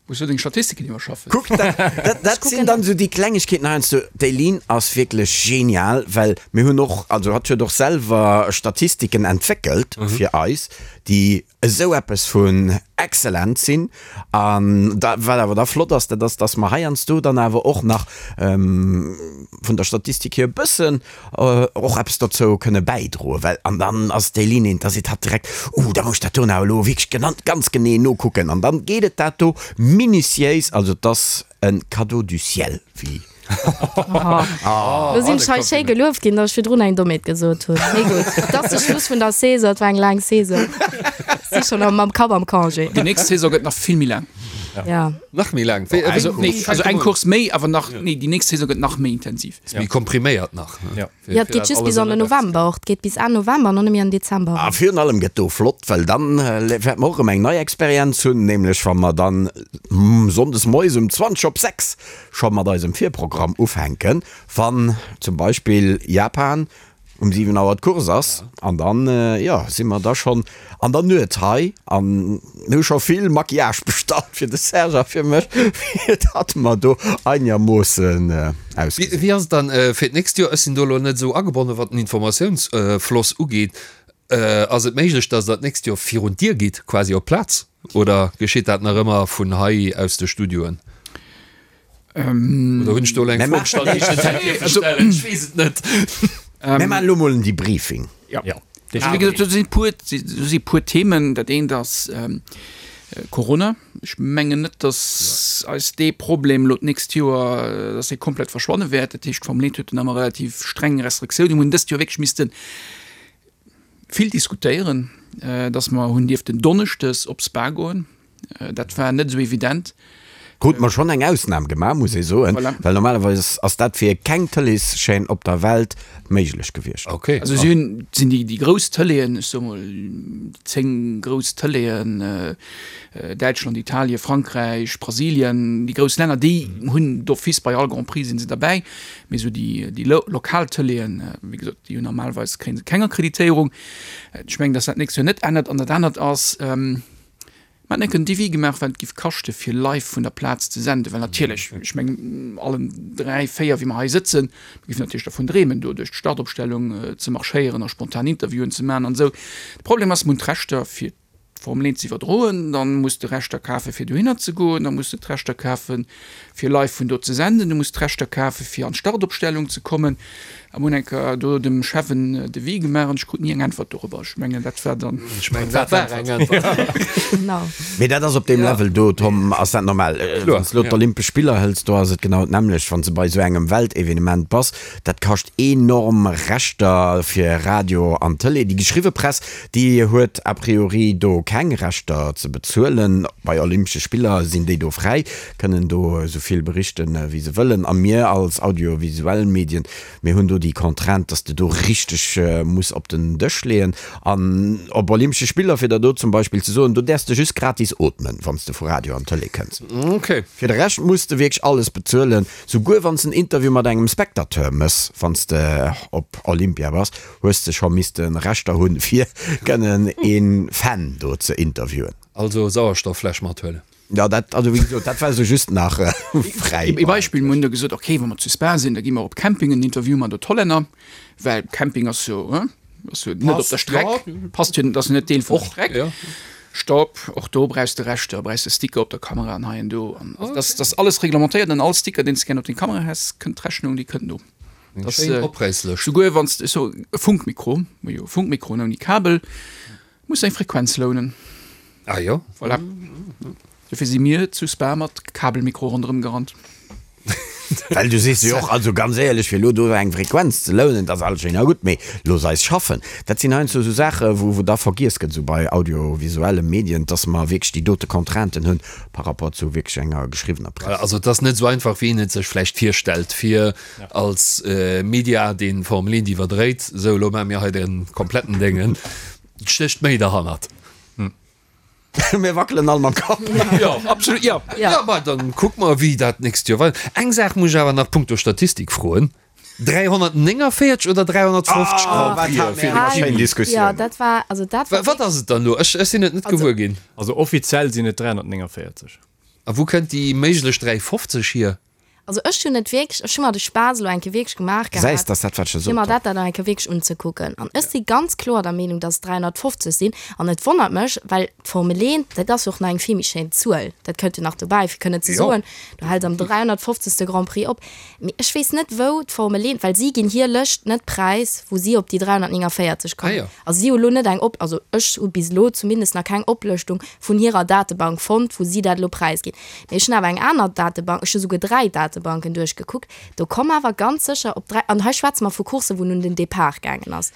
Muss du deng Statistiken iwwerschaffen. Kuck, dat, dat, dat sinn dann esou déi Klengegkeeten heiansdo. D'Eileen ass wierklech genial, well mir hunn och, also hatt huet och selwer Statistiken entwéckelt fir eis, déi esou eppes vun excellent sinn. An da, wat awer da flott ass, dat ass, dass mer heiansdo dann awer och nach vun der Statistik hier e bëssen och eppes dozou kënne bäidroen, well an dann ass d'Eileen eent, da seet hatt direkt, Uh, da muss ech dat do nach elo wierklech genannt ganz genee nokucken. An dann geet et dat do minutiéis, also et ass e Cadeau du ciel, wéi. Lo sinn ech hei schéi gelueft ginn, datt ech virdrun eng Dommheet gesot hunn. Mee gutt, et ass de Schluss vun der Saison, et war eng laang Saison. Si schonn am mam Kapp am Congé. Déi nächst Saison gëtt nach vill méi laang. Ja. Nach méi laang? Wéi, Also, nee, also eng Course méi, awer nach, nee, déi nächst Saison gëtt nach méi intensiv. Ass méi kompriméiert nach. Ja. Ja, et geet just bis an den November och. Et geet bis Enn November an dann nëmme an Dezember. A virun allem gëtt do flott, well dann wäerte mer och erëm eng nei Experienz hunn, nämlech wa mer dann sonndes moies um 20 op 6 scho mat eisem Virprogramm ufänken, wann zum Beispill Japan um 7 Auer d'Course ass an dann, jo, si mer da schonn an der Nuet hei an mir hu scho vill Maquillage bestallt fir de Serge a fir mech, fir datt mer do einermoossen ausgesinn. Wéi ass et dann fir d'nächst Joer? Ech sinn do elo net esou agebonnen, wat den Informatiounsfloss ugeet. Ass et méiglech, datt Der d'nächst Joer virun d'Dier gitt, quasi op d'Plaz, oder geschitt dat nach ëmmer vun hei aus de Studioen? Oder hunn ech do elo eng Fro gestallt, déi ech net hätt dierfe stellen? Ech weess et net. Mir maachen elo mol en Debriefing. Jo. Also wéi gesot, do si puer, do si puer Themen. Dat eent ass Corona. Ech mengen net, datt eis dee Problem elo d'nächst Joer, datt dee komplett verschwanne wäert. Dat heescht, d'Formel 1 huet dunn ëmmer relativ streng Restriktiounen. Mir hunn dëst Joer wierklech misste vill diskutéieren, datt mer hunn dierften donneschdes op Spa goen. Dat war net esou evident. Krute mer schonn eng Ausnam gemaach, muss ee soen, voilà. Well normalerweis ass dat fir keng Tëleeschaîne op der Welt méiglech gewiescht. Okay. Also si hunn, sinn déi, déi grouss Tëleeën, ech soe mol déi 10 grouss Tëleeën, Däitschland, Italien, Frankräich, Brasilien, déi grouss Länner, déi hunn d'office bei all Grand Prix si se derbäi. Mee esou déi, déi lokal Tëleeën, wéi gesot, déi hunn normalerweis kréie se keng Akkreditéierung. Ech mengen, datt dat d'nächst Joer net ännert. An dat anert ass, Mer hätten enk en Devis gemaach, wat et giff kaschte fir live vun der Plaz ze senden, well natierlech, ech mengen allen 3, 4 wéi mer hei sëtzen, mir giffen natierlech dervun dreemen do duerch d'Startopstellung ze marschéieren a spontan Interviewen ze maachen an esou. De Problem ass, mer hunn d'Rechter fir d'Formel 1 ze iwwerdroen, dann muss de Rechter kafe fir dohinner ze goen, da muss de d'Rechter kafe fir live vun do ze senden, du muss d'Rechter kafe fir an d'Startopstellung ze kommen. A mir hunn eng Kéier do dem Chef en Devis gemaach an ech krut ni eng Äntwert dorobber. Ech mengen, dat war dann. Ech mengen, dat war eng Äntwert. Genau. Mee dat ass op deem Level do, Tom, ass dat normal. Wann s de elo d'Olympesch Spiller hëls, do ass et genau d'nämmlecht. Wann s de bei esou engem Weltevenement bass, dat kascht enorm Rechter fir Radio an Tëlee. Déi geschriwwe Press, déi huet a priori do keng Rechter ze bezuelen. Bei Olympesche Spiller sinn déi do fräi, kënnen do esou vill berichten, wéi se wëllen. A mir als audiovisuell Medien, mir hunn do déi Contrainte, dass de do richteg muss op den Dësch leeën. An op Olympesche Spiller, fir der do zum Beispill ze soen, do däerfs de just gratis ootmen, wann s de vu Radio an Tëlee kënns. Okay. Fir de Rescht muss de wierklech alles bezuelen, souguer wann s en Interview mat engem Spectateur mëss, wann s de op Olympia bass, hues de scho misste Rechter hunn, fir kënnen ee Fan do ze interviewen. Also Sauerstofffläsch mathuelen. Ja, dat, also wéi gesot, dat war esou just nach fräi. Ee Beispill, mir hunn da gesot, okay, wa mer zu Spa sinn, da gi mer op Camping en Interview mat de Hollänner, well Camping ass jo, hein, ass jo net op der Streck, passt jo, ass jo net Deel vun der Streck. Stopp, och do brauchs de Rechter, brauchs de Sticker op der Kamera an hei an do. An also dat ass alles reglementéiert an all Sticker, deen s de gär op deng Kamera häss, kënnt d'Rechnung, déi kënnt no. Eng schéin Opräisslëscht. Souguer wann s de, ech so, e Funkmikro, jo, Funkmikroen ouni Kabel, Muss eng Frequenz lounen. Ah jo. Voilà. Dofir si mir zu Spa mat Kabelmikro ronderëm gerannt. Well du sees jo och, also ganz éierlech, fir elo do eng Frequenz ze lounen, dat ass alles schéin a gutt, mee looss eis schaffen. Dat sinn heiansdo esou Saache wou wou da vergiess gëtt, esou bei audiovisuelle Medien, dass mer wierklech déi dote Contrainten hunn par rapport zu wierklech enger geschriwwener Press. Also et ass net esou einfach, wéi een et sech vläicht virstellt, fir als Media deen Formel 1 iwwerdréit, esou elo maache mir hei de kompletten Déngen, et stécht méi derhannert. Mir wackelen all mam Kapp. Jo, absolut, jo. Jo, ma dann kucke mer, wéi dat d'nächst Joer weider. Eng Saach muss ech awer nach punkto Statistik froen, 349 oder 350 Grand Prixen fir de Kimi? Diskussioun. Jo, dat war, also dat war. Wat ass et dann elo? Ech sinn et net gewuer ginn. Also offiziell sinn et 349. A wou kënnt déi méiglech 350 hier? Also ech hunn et wierklech, ech hu mer de Spaass elo eng Kéier wierklech gemaach Gesäis, gehat, dass dat wat ech fir gesot mer hunn. dat dann eng Kéier wierklech unzekucken. An ech si ganz kloer der Meenung, dass et 350 sinn. An et wonnert mech, well d'Formel 1, dat ass jo och nach eng vill méi schéin Zuel, dat kënnt jo nach dobäi, fir kënnen ze Jo. soen, du häls am 350. Grand Prix op. Mee ech weess net, wou d'Formel 1, well si ginn hir Lëscht net präis, wou si op déi 349 Ah kommen. jo. Also si hu lo net eng Op, also ech hu bis elo zumindest nach keng Oplëschtung vun hirer Datebank fonnt, wou si dat elo präisginn. Mee ech hunn awer eng aner Datebank, ech hu souguer 3 Datebanken duerchgekuckt, do komm awer ganz sécher op 3, an hei schwätze mer vu Courssen, wou en un den Depart gaangen ass.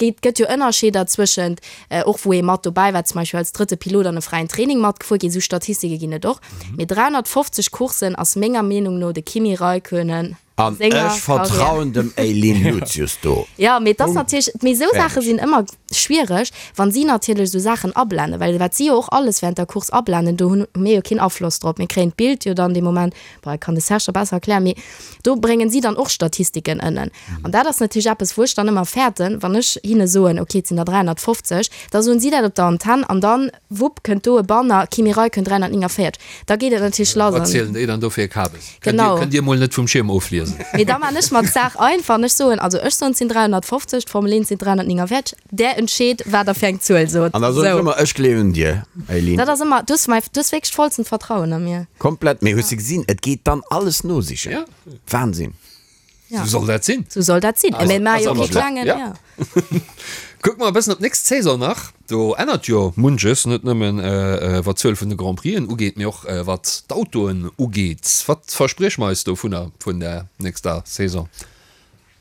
Et gëtt jo Ënnerscheeder zwëschent, och wou ee mat dobäi war, zum Beispill als drëtte Pilot an e fräien Training matgefuer ginn, esou Statistike ginn et och. Mee 350 Courssen ass menger Meenung no de Kimi Räikkönen a An senger ech vertrauen Karriär. dem Eileen Lucius do. Jo, mee et ass Punkt. natierlech, mee esou Saache Fäerdeg. sinn ëmmer schwiereg, wann si natierlech esou Saachen ablenden, well wat si jo och alles während der Course ablenden, do hunn mir jo keen Afloss drop. Mir kréien d'Bild jo dann dee Moment, bon, dat kann de Serge da besser erklären, mee do bréngen si dann och Statistiken ënnen. An dat ass natierlech eppes, wou ech dann ëmmer fäerten, wann ech hinne soen, okay, et sinn der 350, da soen si dat op der Antenn an dann, wupp, kënnt do e Banner, Kimi Räikkönen 349. Da geet et natierlech lass. Wat zielen déi dann do fir e Kabes? Genau. Kënnt Dir mol net vum Schierm ofliesen. Mee da man ech mer d'Saach einfach an ech soen, also ech soen, et sinn 350, d'Formel 1 sinn 349. Där entscheet, wat der fir eng Zuel sot. An da soen ech Sou. ëmmer, ech gleewen dir, Eileen. Dat ass ëmmer, du hues mäi, du hues wierklech d'vollsten Vertrauen a mir. Komplett, mee hues de gesinn, et geet dann alles nosichen. Ja. Wahnsinn. Ja. Sou soll dat sinn. Sou soll dat sinn. Mee maach jo ass kee klengen, ja. ja. Kucke mer e bëssen op d'nächst Saison nach. Do ännert jo munches, net nëmmen wat d'Zuel vun de Grand Prixen ugeet, mee och wat d'Autoen ugeet. Wat versprieche mer eis dovunner vun der nächster Saison?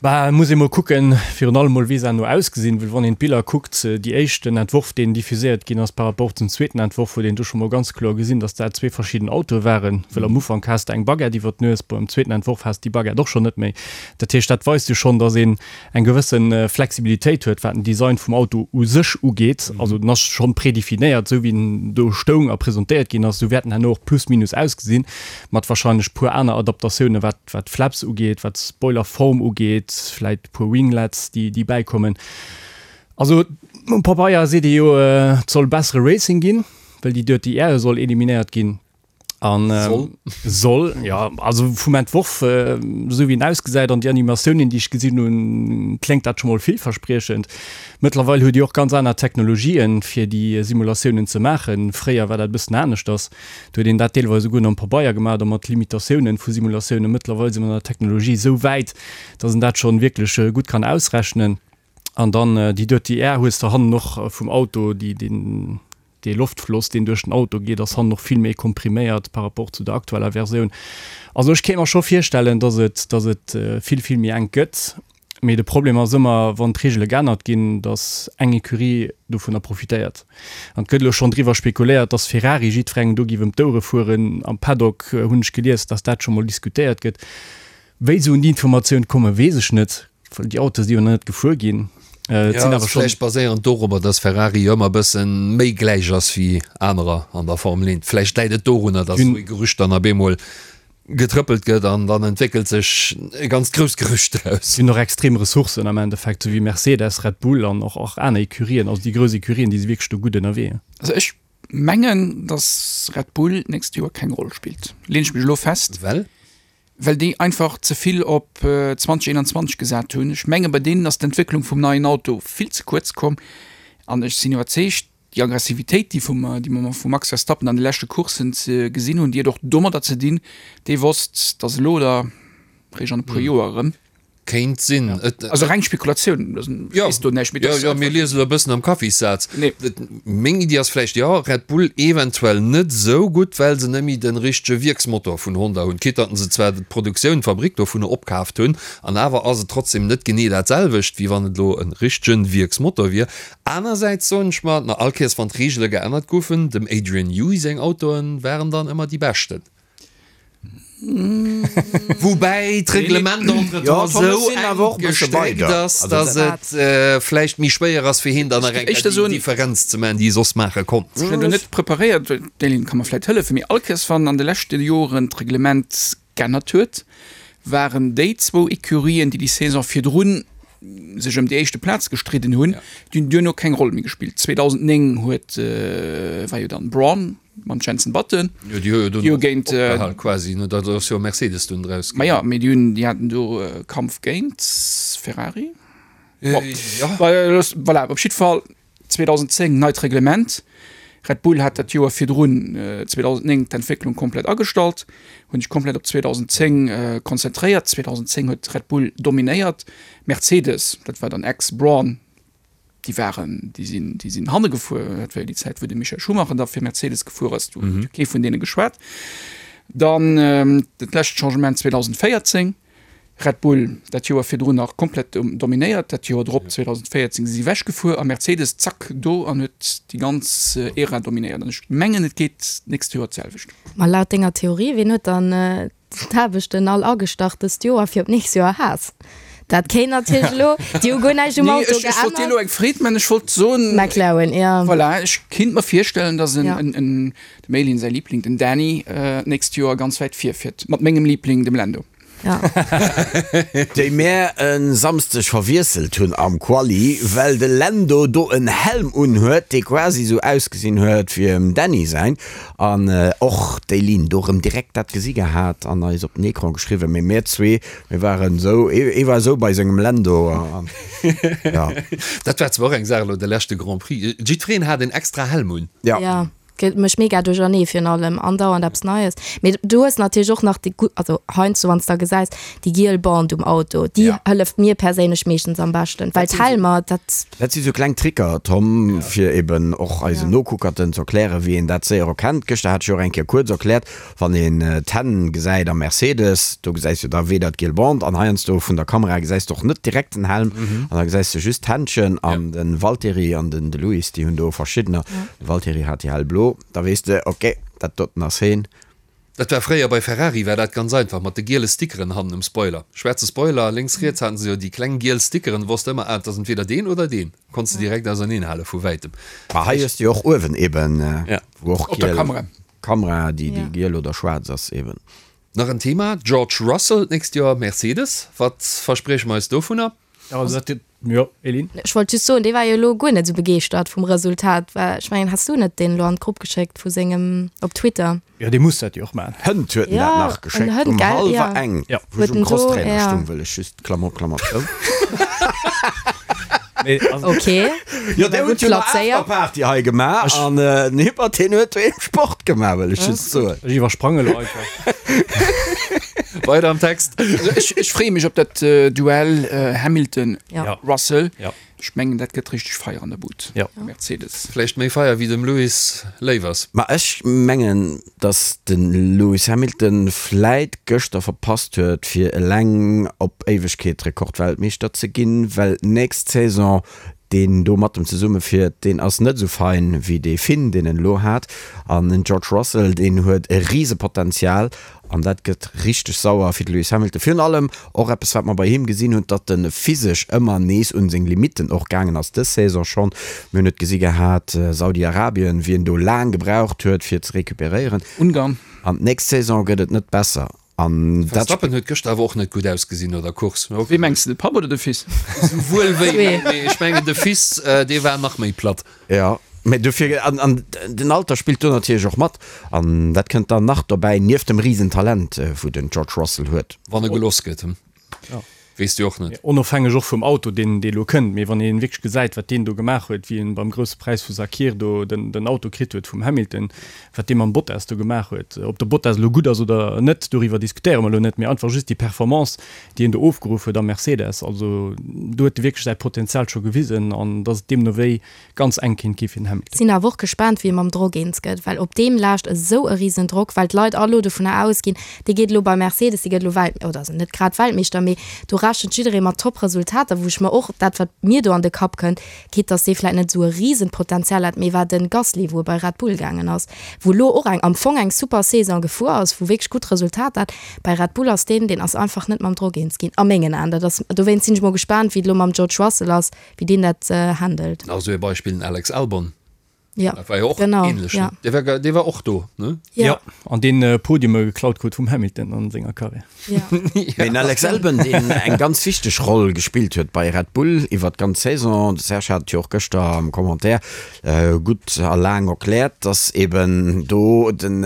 Bah, et muss ee mol kucken, virun allem mol wéi se herno ausgesinn, well wann een d'Biller kuckt, déi éischten Entworf deen diffuséiert ginn ass par rapport zum zweeten Entworf, huet een do scho mol ganz kloer gesinn, datt dat zwee verschidden Autoe waren, well am Ufank has de eng Baguette iwwer d'Nues, bon am zweeten Entworf has de déi Baguette och schonn net méi. Dat heescht, dat weist jo schonn, datt een eng gewësse Flexibilitéit huet, wat den Design vum Auto u sech ugeet. Also en ass schonn predefinéiert, esou wéi en do stoung a presentéiert ginn ass, esou wäert en herno och plus minus ausgesinn, mat wahrscheinlech puer aner Adaptatiounen, wat wat d'Flaps ugeet, wat d'Spoilerform ugeet, vläit e puer Winglets, déi, déi bäikommen. Also um Pabeier seet ee jo, et soll bessere Racing ginn, well déi Dirty Air soll eliminéiert ginn. An, Soll? Soll, ja. Also vum Entworf, esou wéi en ausgesäit an déi Animatiounen, déi ech gesinn hunn, kléngt dat scho mol villverspriechend. Mëttlerweil huet Dir och ganz aner Technologien, fir déi Simulatiounen ze maachen. Fréier war dat e bëssen aneschters. Do huet een dat deelweis esouguer nom Pabeier gemaach oder mat Limitatiounen vu Simulatiounen. Mëttlerweil si mer an der Technologie esou wäit, dass een dat schonn wierklech gutt kann ausrechnen. An dann déi Dirty Air hues de hannen och vum Auto, déi, deen, dee Loftfloss, deen duerch den Auto geet, ass hannen och vill méi kompriméiert par rapport zu der aktueller Versioun. Also ech kéint mer scho virstellen, dass et, dass et vill, vill méi enk gëtt. Mee de Problem ass ëmmer, wann d'Reegele geännert ginn, datt eng Ecurie dovunner profitéiert. An et gëtt elo schonn driwwer spekuléiert, datt Ferrari jiddwerengem do géif ëm d'Ouere fueren. Am Paddock hunn ech gelies, datt dat scho mol diskutéiert gëtt. Wéi se un déi Informatioun kommen, weess ech net, well déi Autoe si jo nach net gefuer ginn. Et Jo, sinn ass awer schonn. vläicht baséierend dorobber, datt Ferrari jo ëmmer e bësse méi gläich ass wéi anerer an der Formel 1. Vläicht läit et dorunner, datt esou ee Gerücht dann op eemol getrëppelt gëtt an dann entwéckelt sech e ganzt grousst Gerücht draus. Si hunn och extrem Ressourcen am Endeffekt, esou wéi Mercedes, Red Bull an och och aner Ecurien. Also déi grouss Ecurien, déi si wierklech do gutt ënnerwee. Also ech mengen, datt Red Bull d'nächst Joer keng Roll spillt, leen ech mech elo fest. Well? Well déi einfach ze vill op 2021 gesat hunn. Ech menge bei deenen ass d'Entwécklung vum neien Auto vill ze kuerz komm an ech sinn iwwerzeegt, Déi Aggressivitéit, déi vum, déi mer vum Max Verstappen an de leschte Courssen ze gesinn hunn, déi huet och domadder ze dinn, dee wosst, dass elo oder réischt an e puer Joer erëm. Kéint sinn. Et. Also reng Spekulatioun, ech weess do näischt, mee Jo, jo, mir liese elo e bëssen am Kaffissaz. Nee. Meng Iddi ass vläicht, jo, Red Bull eventuell net esou gutt, well se net méi de richtege Wierksmotor vun Honda hunn, quitte datt se zwar d'Produktioun, d'Fabrik dovunner opkaaft hunn, an awer ass et trotzdem net genee dat selwecht, wéi wann et elo e richtege Wierksmotor wier. Anersäits soen ech mer, na all Kéiers wann d'Reegele geännert goufen, dem Adrian Newey seng Autoen waren dann ëmmer déi beschten. Woubäi d'Reglement entretemps esou enk gestréckt ass, datt et vläicht méi schwéier ass fir hien dann nach eng Kéier déi Differenz ze maachen, déi e soss maache konnt. Ech hunn do net preparéiert, d'Céline ka mer vläicht hëllefen, mee all Kéiers wann an de leschte Joren d'Reglement g'ännert huet, waren déi zwou Ecurien, déi déi Saison virdrun sech ëm déi éischte Plaz gestridden hunn, déi hunn duerno keng Roll méi gespillt. 2009 huet, war jo dann Brawn mam Jenson Button, Jo, déi hu jo déi hu dunn géint, opgehal quasi, ne? Da ass jo Mercedes dunn draus ma ginn. jo, mee déi hunn, déi haten do Kampf géint Ferrari. Bon, Jo. voilà, op jiddwer Fall 2010 neit Reglement, Red Bull hat dat Joer virdrun, 2009, d'Entwécklung komplett agestallt, hunn sech komplett op 2010 konzentréiert. 2010 huet Red Bull dominéiert, Mercedes, dat war dann ex-Brawn, déi waren, déi sinn, déi sinn hanne gefuer. Dat war jo déi Zäit, wou de Michael Schumacher da fir Mercedes gefuer ass, do huet jo kee vun deene geschwat. Dann dat lescht Changement 2014. Red Bull dat Joer virdrun nach komplett dominéiert, dat Joer drop 2014 si si ewech gefuer a Mercedes zack do an huet déi ganz Ära dominéiert. An ech mengen et geet d'nächst Joer d'selwecht. Ma laut denger Theorie, wien huet dann d'Aarbechten all agestach dëst Joer fir op d'nächst Joer Haas? Dat kéint natierlech elo, déi hu guer näischt um Nee, Auto ech, ech wollt dir geännert. elo eng Freed man, ech wollt soen, McLaren, jo. Voilà, ech kinnt mer virstellen, datt en, Ja. en, en, dem Elin säi Liebling, den Dany, d'nächst Joer ganz wäit virfiert mat mengem Liebling, dem Lando. Ja. Déi mär e Samsdeg verwiesselt hunn am Quali, well de Lando do en Helm unhuet, dee quasi sou ausgesinn huet wéi em Dany säin. An och d'Eileen do rëm direkt dat gesi gehat an eis op den Ecran geschriwwen. Mee mär zwee, mir waren esou, ee war esou bei sengem Lando an ja. Dat war zwar och eng Saach elo de leschte Grand Prix, jiddwereen hat en extra Helm un. Ja. Ja. Gëtt mech mega duerchernee virun allem andauernd eppes Neies. Mee du hues natierlech och nach déi gutt, also heiansdo wann s de da gesäis, déi giel Bande um Auto, déi Ja. hëlleft mir perséinlech meeschtens am beschten, well d'Helmer, dat. Dat si sou kleng Tricker, Tom, fir eben och eisen Ja. Nokuckerten ze erklären, wéi een dat séier erkennt. Gëschter hat ech jo och eng Kéier kuerz erkläert, wann een d'Hänn gesäit am Mercedes, do gesäis du da weder d'giel Bande an heiansdo vun der Kamera gesäis de och net direkt den Helm an da gesäis de just d'Händchen an de Valtteri an den de Lewis, déi hunn do verschiddener. De Valtteri hat déi hellblo, da weess de, ok, dat doten ass heen. Dat war fréier bei Ferrari war dat ganz einfach mat de giele Stickeren hannen um Spoiler. Schwaarze Spoiler, lénks riets haten se jo déi kleng giel Stickeren, wosst ëmmer, ah et ass entweder deen oder deen. Konns de direkt auserneen hale vu wäitem. Ma hei hues de jo och uewen eben, wou och Op der giel Kamera. Kamera, déi déi giel oder schwaarz ass eben. Nach en Thema, George Russell d'nächst Joer Mercedes, wat versprieche mer eis dovunner? Also dat Jo, Eline? Ech wollt just soen, dee war jo elo guer net esou begeeschtert vum Resultat, well ech mengen, has du net deen elo an d'Grupp geschéckt vu sengem op Twitter? Jo, dee muss dat jo och maachen. Hënt huet en Ja, dat nach en geschéckt, Hënt, um gell? hallwer Ja. eng, Ja. wou ech Huet um en do, Crosstrainer ja. stung, wëll ech just, Klammer op, Klammer zou. Nee, also, Ok. Jo, dee War huet gutt jo nach plazéiert. Afterparty hei gemaach an den Hippert, deen huet doheem Sport gemaach, wëll ech just soen. ech iwwersprange elo einfach. Weider am Text. Also ech, ech freeë mech op dat Duell Hamilton, Ja. Russell. Ja. Ech mengen, dat gëtt richteg Feier an der Bud. Ja. Mercedes. Vläicht méi Feier wéi dem Lewis léif ass. Ma ech mengen, datt de Lewis Hamilton vläit gëschter verpasst huet, fir eleng op Éiwegkeet Rekordweltmeeschter ze ginn, well d'nächst Saison deen do mat em zesumme fiert, deen ass net esou fein wéi dee Finn, deen en elo hat. An den George Russell, deen huet e Risepotenzial an dat gëtt richteg sauer fir de Lewis Hamilton. Virun allem och eppes, wat mer bei him gesinn hunn, datt e physesch ëmmer nees un seng Limitten och gaangen ass, dës Saison schonn. Mir hunn et gesi gehat, Saudi-Arabien, wéi en do laang gebraucht huet, fir ze recuperéieren. Ungarn. An d'nächst Saison gëtt et net besser. An dat. Verstappen huet gëschter awer och net gutt ausgesinn no der Course. Wee mengs de, de Papp oder de Fils? Souwuel wéi, mee ech mengen de Fils, dee war nach méi platt. Jo, mee dofir, an, an den Alter spillt do natierlech och mat. An dat kënnt dann nach dobäi, nieft dem Risentalent, wou den George Russell huet. Wann e gelooss gëtt, weess de och net. Onofhängeg och vum Auto, deen dee elo kënnt, mee wann ee wierklech gesäit, wat deen do gemaach huet, wéi en beim Grousse Präis vu Sakhir do den den Auto kritt huet vum Hamilton, wat dee mam Bottas do gemaach huet, ob de Bottas elo gutt ass oder net, doriwwer diskutéiere mer elo net, mee einfach just déi Performance, déi en do ofgeruff huet am Mercedes, also do huet e wierklech säi Potenzial scho gewisen an dass et deemno wéi ganz enk kéint gi fir den Hamilton. Sinn awer och gespaant wéi e mam Drock eens gëtt, well op deem laascht esou e risen Drock, well d'Leit all elo dovunner ausginn, dee geet elo bei Mercedes, dee gëtt elo Welt, oder also net grad Weltmeeschter, mee do rechent jidderee mat top Resultater, wou ech mer och, dat wat mir do an de Kapp kënnt, quitte dass dee vläit net esou e risen Potenzial hat, mee war de Gasly, wou e bei Red Bull gaangen ass, wou elo och eng am Fong eng super Saison gefuer ass, wou wierklech gutt Resultater hat, bei Red Bull ass deen, deen ass einfach net mam Drock eens ginn a mengen Aen. Dat ass, dowéinst sinn ech mol gespaant wéi et elo mam George Russell ass, wéi deen dat handelt. Nach esou ee Beispill, den Alex Albon. Ja, Dat war jo och genau, ähnlech, ja. ne? Dee war, dee war och do, ne? Ja. Ja, an deen Podiume geklaut krut vum Hamilton an senger Karriär. Ja. Mee den Alex Albon, deen eng ganz wichteg Roll gespillt huet bei Red Bull iwwer d'ganz Saison, de Serge hat et jo och gëschter am Commentaire gutt a laang erkläert, dass eben do den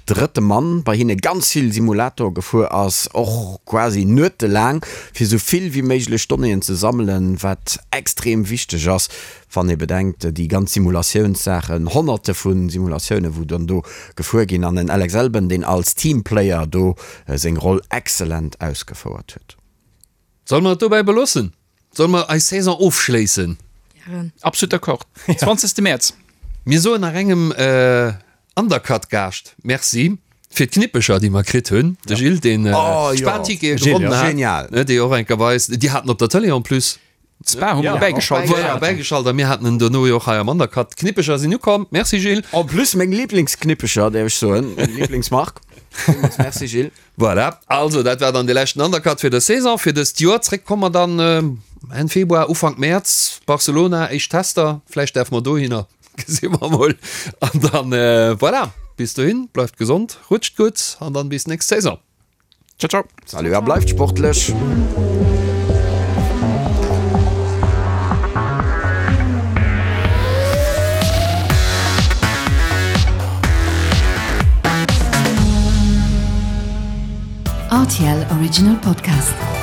drëtte Mann bei hinne ganz vill Simulator gefuer ass, och quasi nuetelaang, fir esou vill wéi méiglech Donnéeën ze sammelen, wat extrem wichteg ass, wann ee bedenkt, déi ganz Simulatiounssaachen, Honnerte vu Simulatiounen, wou dann do gefuer ginn, an en Alex Albon, deen als Teamplayer do seng Roll exzellent ausgefouert huet. Solle mer et dobäi beloossen? Solle mer eis Saison ofschléissen? Absolut d'accord. 20. Mäerz. Mir soen nach engem Undercut-Gaascht Merci. Fir d'Knippecher, déi mer kritt hunn. De Gilles, deen d'Spa-Tickete gewonnen hat. Genial. Déi och eng Kéier bei eis, déi haten op der Tëlee en plus. D'Spa hu mer bäigeschalt. Voilà, bäigeschalt a mir haten en dono jo och hei am Undercut. D'Knippecher sinn ukomm. Merci Gilles. En plus meng Lieblingsknippecher, däerf ech soen, meng Lieblingsmark. Villmools Merci Gilles. Voilà, also dat war dann de leschten Undercut fir dës Saison, fir dëst Joer. Zréck komme mer dann Enn Februar, Ufank Mäerz, Barcelona, éischt Tester, vläicht däerfe mer dohinner, gesi mer mol. An dann, voilà, bis dohin, bleift gesond, rutscht gutt an dann bis nächst Saison. Ciao, ciao. Salut a bleift sportlech. RTL Original Podcast.